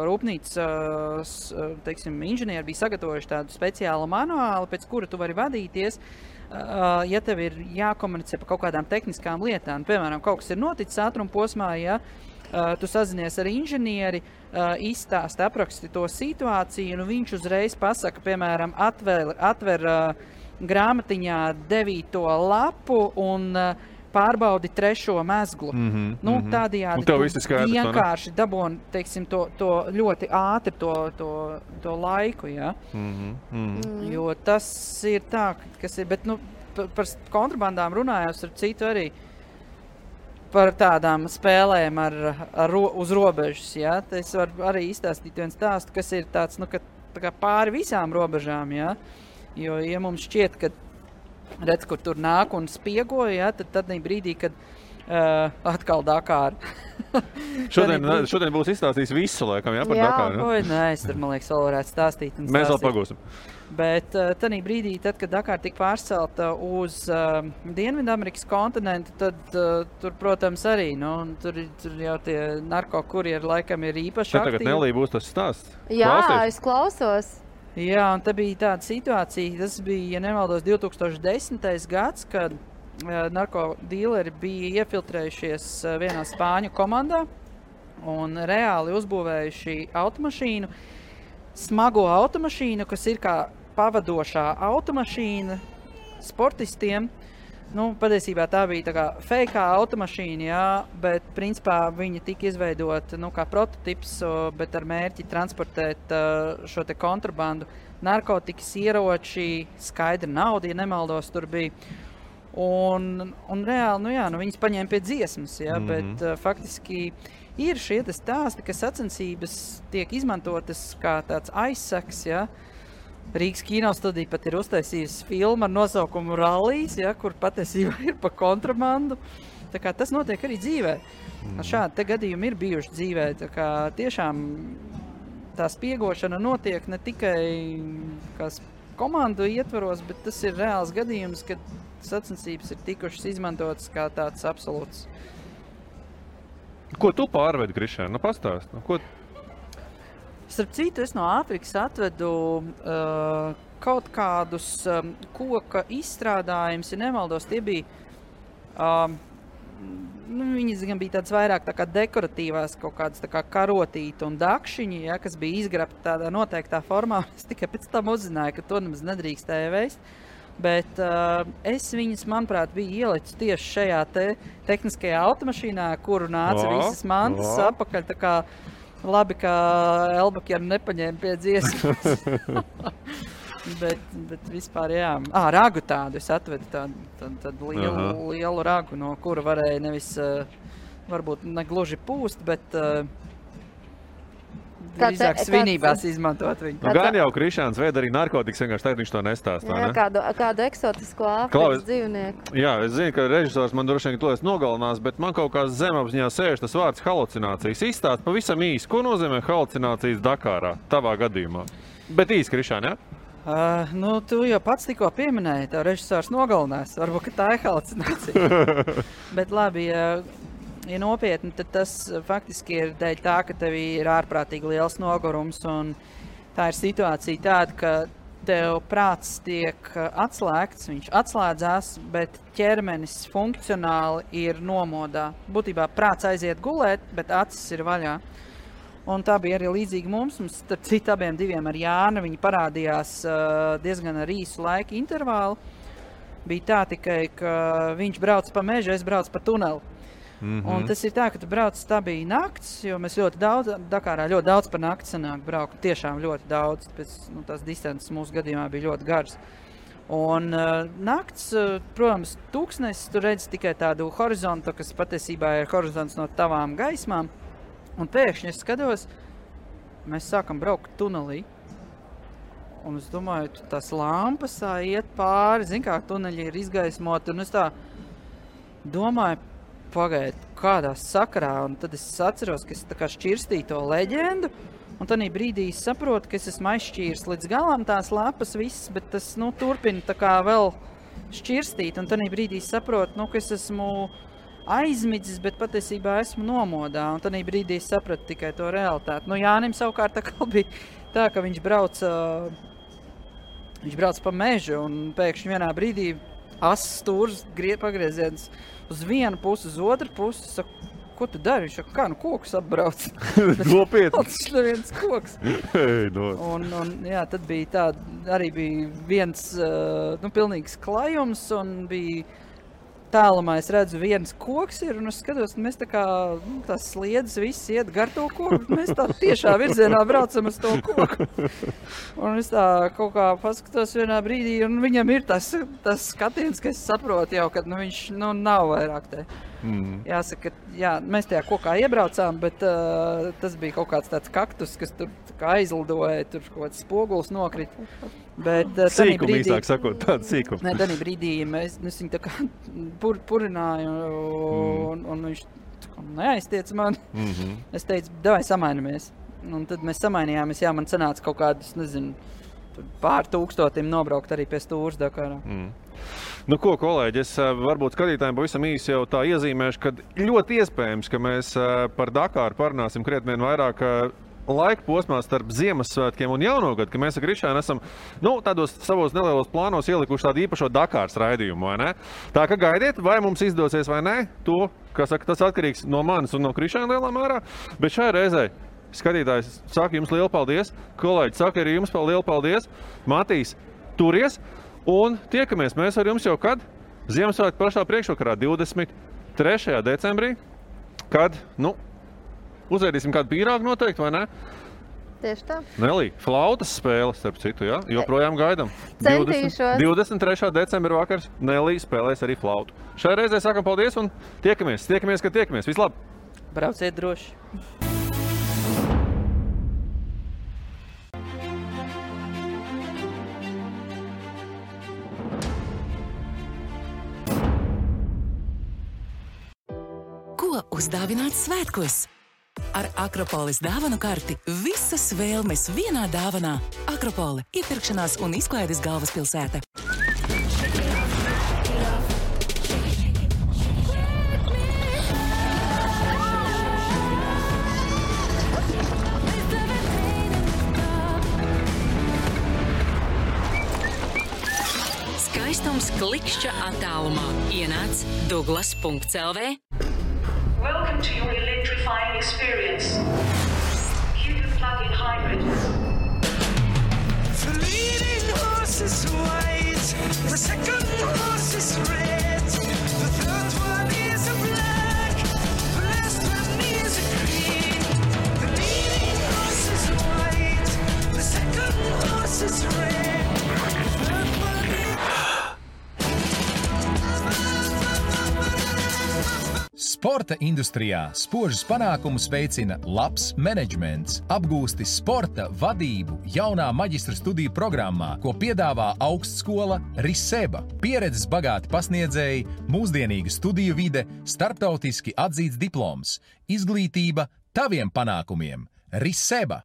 rūpnīcas, teiksim, inženieri bija sagatavojuši tādu speciālu manuālu, pēc kura tu vari vadīties, ja tev ir jākomunicē par kaut kādām tehniskām lietām. Piemēram, kaut kas ir noticis ātruma posmā, ja tu sazinies ar inženieri, izstāsti, apraksti to situāciju, un viņš uzreiz pasaka, piemēram, atver grāmatiņā 9. lapu un pārbaudi 3. mezglu. Tādējādi tu vienkārši dabūni, teiksim, to ļoti ātri to laiku, ja? Jo tas ir tā, kas ir, bet, par kontrabandām runājos ar citu arī par tādām spēlēm uz robežas, ja? Es varu arī izstāstīt viens stāstu, kas ir tāds, ka tā kā pāri visām robežām, ja? Jo, ja mums šķiet, ka redz, kur tur nāk un spiegoja, ja, tad brīdī, kad atkal Dakāra. Šodien būs izstāstījis visu laikam, jā, par Dakāru. Nē, es tur, man liekas, vēl varētu stāstīt. Mēs vēl pagūsim. Bet tanī brīdī, tad, kad Dakāra tika pārcelta uz Dienvidamerikas kontinentu, tad tur, protams, arī, tur jau tie narkokurjeri laikam ir īpaši aktīvi. Tagad Nelī būs tas stāsts. Jā, es klausos. Jā, un te bija tāda situācija, tas bija, ja nemaldos, 2010. gads, kad narkodīleri bija iefiltrējušies vienā spāņu komandā un reāli uzbūvējuši automašīnu, smago automašīnu, kas ir kā pavadošā automašīna sportistiem. Patiesībā tā bija tā kā fejkā automašīna, jā, bet principā viņa tika izveidota kā prototips, bet ar mērķi transportēt šo te kontrabandu, narkotikas, ieroči, skaidra nauda, ja nemaldos, tur bija. Un reāli, viņas paņēma pie dziesmas, jā, bet faktiski ir šie stāsti, ka sacensības tiek izmantotas kā tāds aizsaks, jā. Rīgas kinostudija pat ir uztaisījusi filmu ar nosaukumu Rallijs, ja, kur patiesībā ir pa kontrabandu. Tā kā tas notiek arī dzīvē. Šādi te gadījumi ir bijuši dzīvē. Tā kā tiešām tā spiegošana notiek ne tikai komandu ietvaros, bet tas ir reāls gadījums, kad sacensības ir tikušas izmantotas kā tāds absolūts. Ko tu pārvedi, Krišēn? Pastāst. Starp citu, es no Āfrikas atvedu kaut kādus koka izstrādājumus, ja nemaldos, tie bija, viņas gan bija tāds vairāk tā kā dekoratīvās, kaut kādas tā kā karotīti un dakšiņi, ja, kas bija izgrabti tādā noteiktā formā. Es tikai pēc tam uzzināju, ka to nemaz nedrīkstēja veist. Bet es viņas, manuprāt, biju ielicis tieši šajā tehniskajā automašīnā, kuru nāca visas mantas apakaļ, tā kā labi, ka Elbakjana nepaņēma pie dziesmas. Bet vispār, jā. Ragu tādu es atvedu, tādu lielu ragu, no kura varēja nevis, varbūt negluži pūst, bet drīzāk svinībās izmantot viņu. Nu, gan jau Krišāns veida arī narkotikas, vienkārši tagad viņš to nestāstā, ne? Kādu eksotisko Āfrikas dzīvnieku. Jā, es zinu, ka režisors man droši vien to es nogalinās, bet man kaut kā zemapziņā sēž tas vārds halucinācijas. Izstāst pavisam īsi, ko nozīmē halucinācijas Dakārā, tavā gadījumā? Bet īsi, Krišān, jā? Tu jau pats tikko pieminēji, tev režisors nogalinās. Varbūt, ka tā ir halucinācija. Bet labi, ja nopietni, tad tas faktiski ir dēļ tā, ka tev ir ārprātīgi liels nogurums. Un tā ir situācija tāda, ka tev prāts tiek atslēgts, viņš atslēdzās, bet ķermenis funkcionāli ir nomodā. Būtībā prāts aiziet gulēt, bet acis ir vaļā. Un tā bija arī līdzīga mums. Mums starp citu abiem diviem ar Jānu, viņi parādījās diezgan ar īsu laika intervālu. Bija tā tikai, ka viņš brauc pa mežu, es braucu pa tuneli. Un tas ir tā, ka tu brauc, tā bija nakts, jo mēs ļoti daudz, Dakārā ļoti daudz par nakti sanāk braukt, tiešām ļoti daudz, pēc tās distances mūsu gadījumā bija ļoti garas. Un nakts, protams, tūkstnesis, tu redzi tikai tādu horizontu, kas patiesībā ir horizonts no tavām gaismām. Un pēkšņi es skatos, mēs sākam braukt tunelī. Un es domāju, tās lampas iet pāri, zin kā tuneļi ir izgaismoti. Un es tā domāju, pagaid, kādā sakarā. Un tad es atceros, ka es tā kā šķirstīju to leģendu. Un tad brīdī es saprotu, ka es esmu aizšķīris līdz galam tās lapas visas, bet tas turpina tā kā vēl šķirstīt. Un tad brīdī es saprotu, ka es esmu aizmidzis, bet patiesībā esmu nomodā. Un tad brīdī es sapratu tikai to realitāti. Jānim savukārt tā kā bija tā, ka viņš brauc pa mežu un pēkšņi vienā brīdī asas stūrs pagrieziens uz vienu pusi, uz otru pusi. Saku, ko tu dari? Viņš saka, kokus apbrauc. Nopietni. Tas ir viens koks. Un jā, tad bija tā, arī bija viens pilnīgs klajums un bija tālumā es redzu, viens koks ir, un es skatos, mēs tā kā tās sliedas viss iet gar to koku, mēs tā tiešā virzienā braucam uz to koku. Un es tā kaut kā paskatos vienā brīdī, un viņam ir tas skatiens, ka es saprotu jau, ka viņš nav vairāk te. Jāsaka, jā, mēs tajā kokā iebraucām, bet tas bija kaut kāds tāds kaktus, kas tur kā aizlidoja, tur kaut kāds spoguls nokrita. Sīkumi īsāk sakot, tādu sīkumu. Nē, tādā brīdī mēs viņu tā kā purināju, un viņš neaiztiec man. Es teicu, davai samainamies. Un tad mēs samainījāmies, jā, man sanāca kaut kādus, nezinu, pār 1000 nobraukt arī pie stūras Dakārā. Nu ko, kolēģi, es varbūt skatītājiem pavisam īsi jau tā iezīmēšu, ka ļoti iespējams, ka mēs par Dakāru parunāsim krietni vien vairāk laika posmā starp Ziemassvētkiem un Jaunogadu, ka mēs ar Krišānu esam tādos savos nelielos plānos ielikuši tādu īpašo Dakāras raidījumu, vai ne? Tā ka gaidiet, vai mums izdosies vai ne, to, kā saka, tas atkarīgs no manis un no Krišāna lielā mērā, bet šajā reizē skatītājs saka jums lielu paldies, kolēģi saka arī jums lielu paldies, Matīs, turies, un tiekamies mēs ar jums jau kad? Ziemassvētku pašā priekšvakarā 23. decembrī, kad, uzēdīsim kādu pīrāgu noteikti, vai ne? Tieši tā. Nelī, flautas spēle, starp citu, jā? Joprojām gaidam. Centīšos. 23. decembra vakars Nelī spēlēs arī flautu. Šajā reizē sakam paldies un tiekamies, kad tiekamies. Vislab! Brauciet droši! Ko uzdāvināt svētkos? Ar Akropolis dāvanu karti visas vēlmes vienā dāvanā. Akropole – iepirkšanās un izklaides galvaspilsēta. Skaistums klikšķa attālumā. Ienāc Douglas.lv. Welcome to your electrifying experience. Cupid plug-in hybrid. The leading horse is white, the second horse is red, the third one is a black, the last one is a green. The leading horse is white, the second horse is red. Sporta industrijā spožus panākumus veicina labs menedžments, apgūsti sporta vadību jaunā maģistra studiju programmā, ko piedāvā augstskola Riseba. Pieredzes bagāti pasniedzēji, mūsdienīga studiju vide, starptautiski atzīts diploms, izglītība taviem panākumiem. Riseba.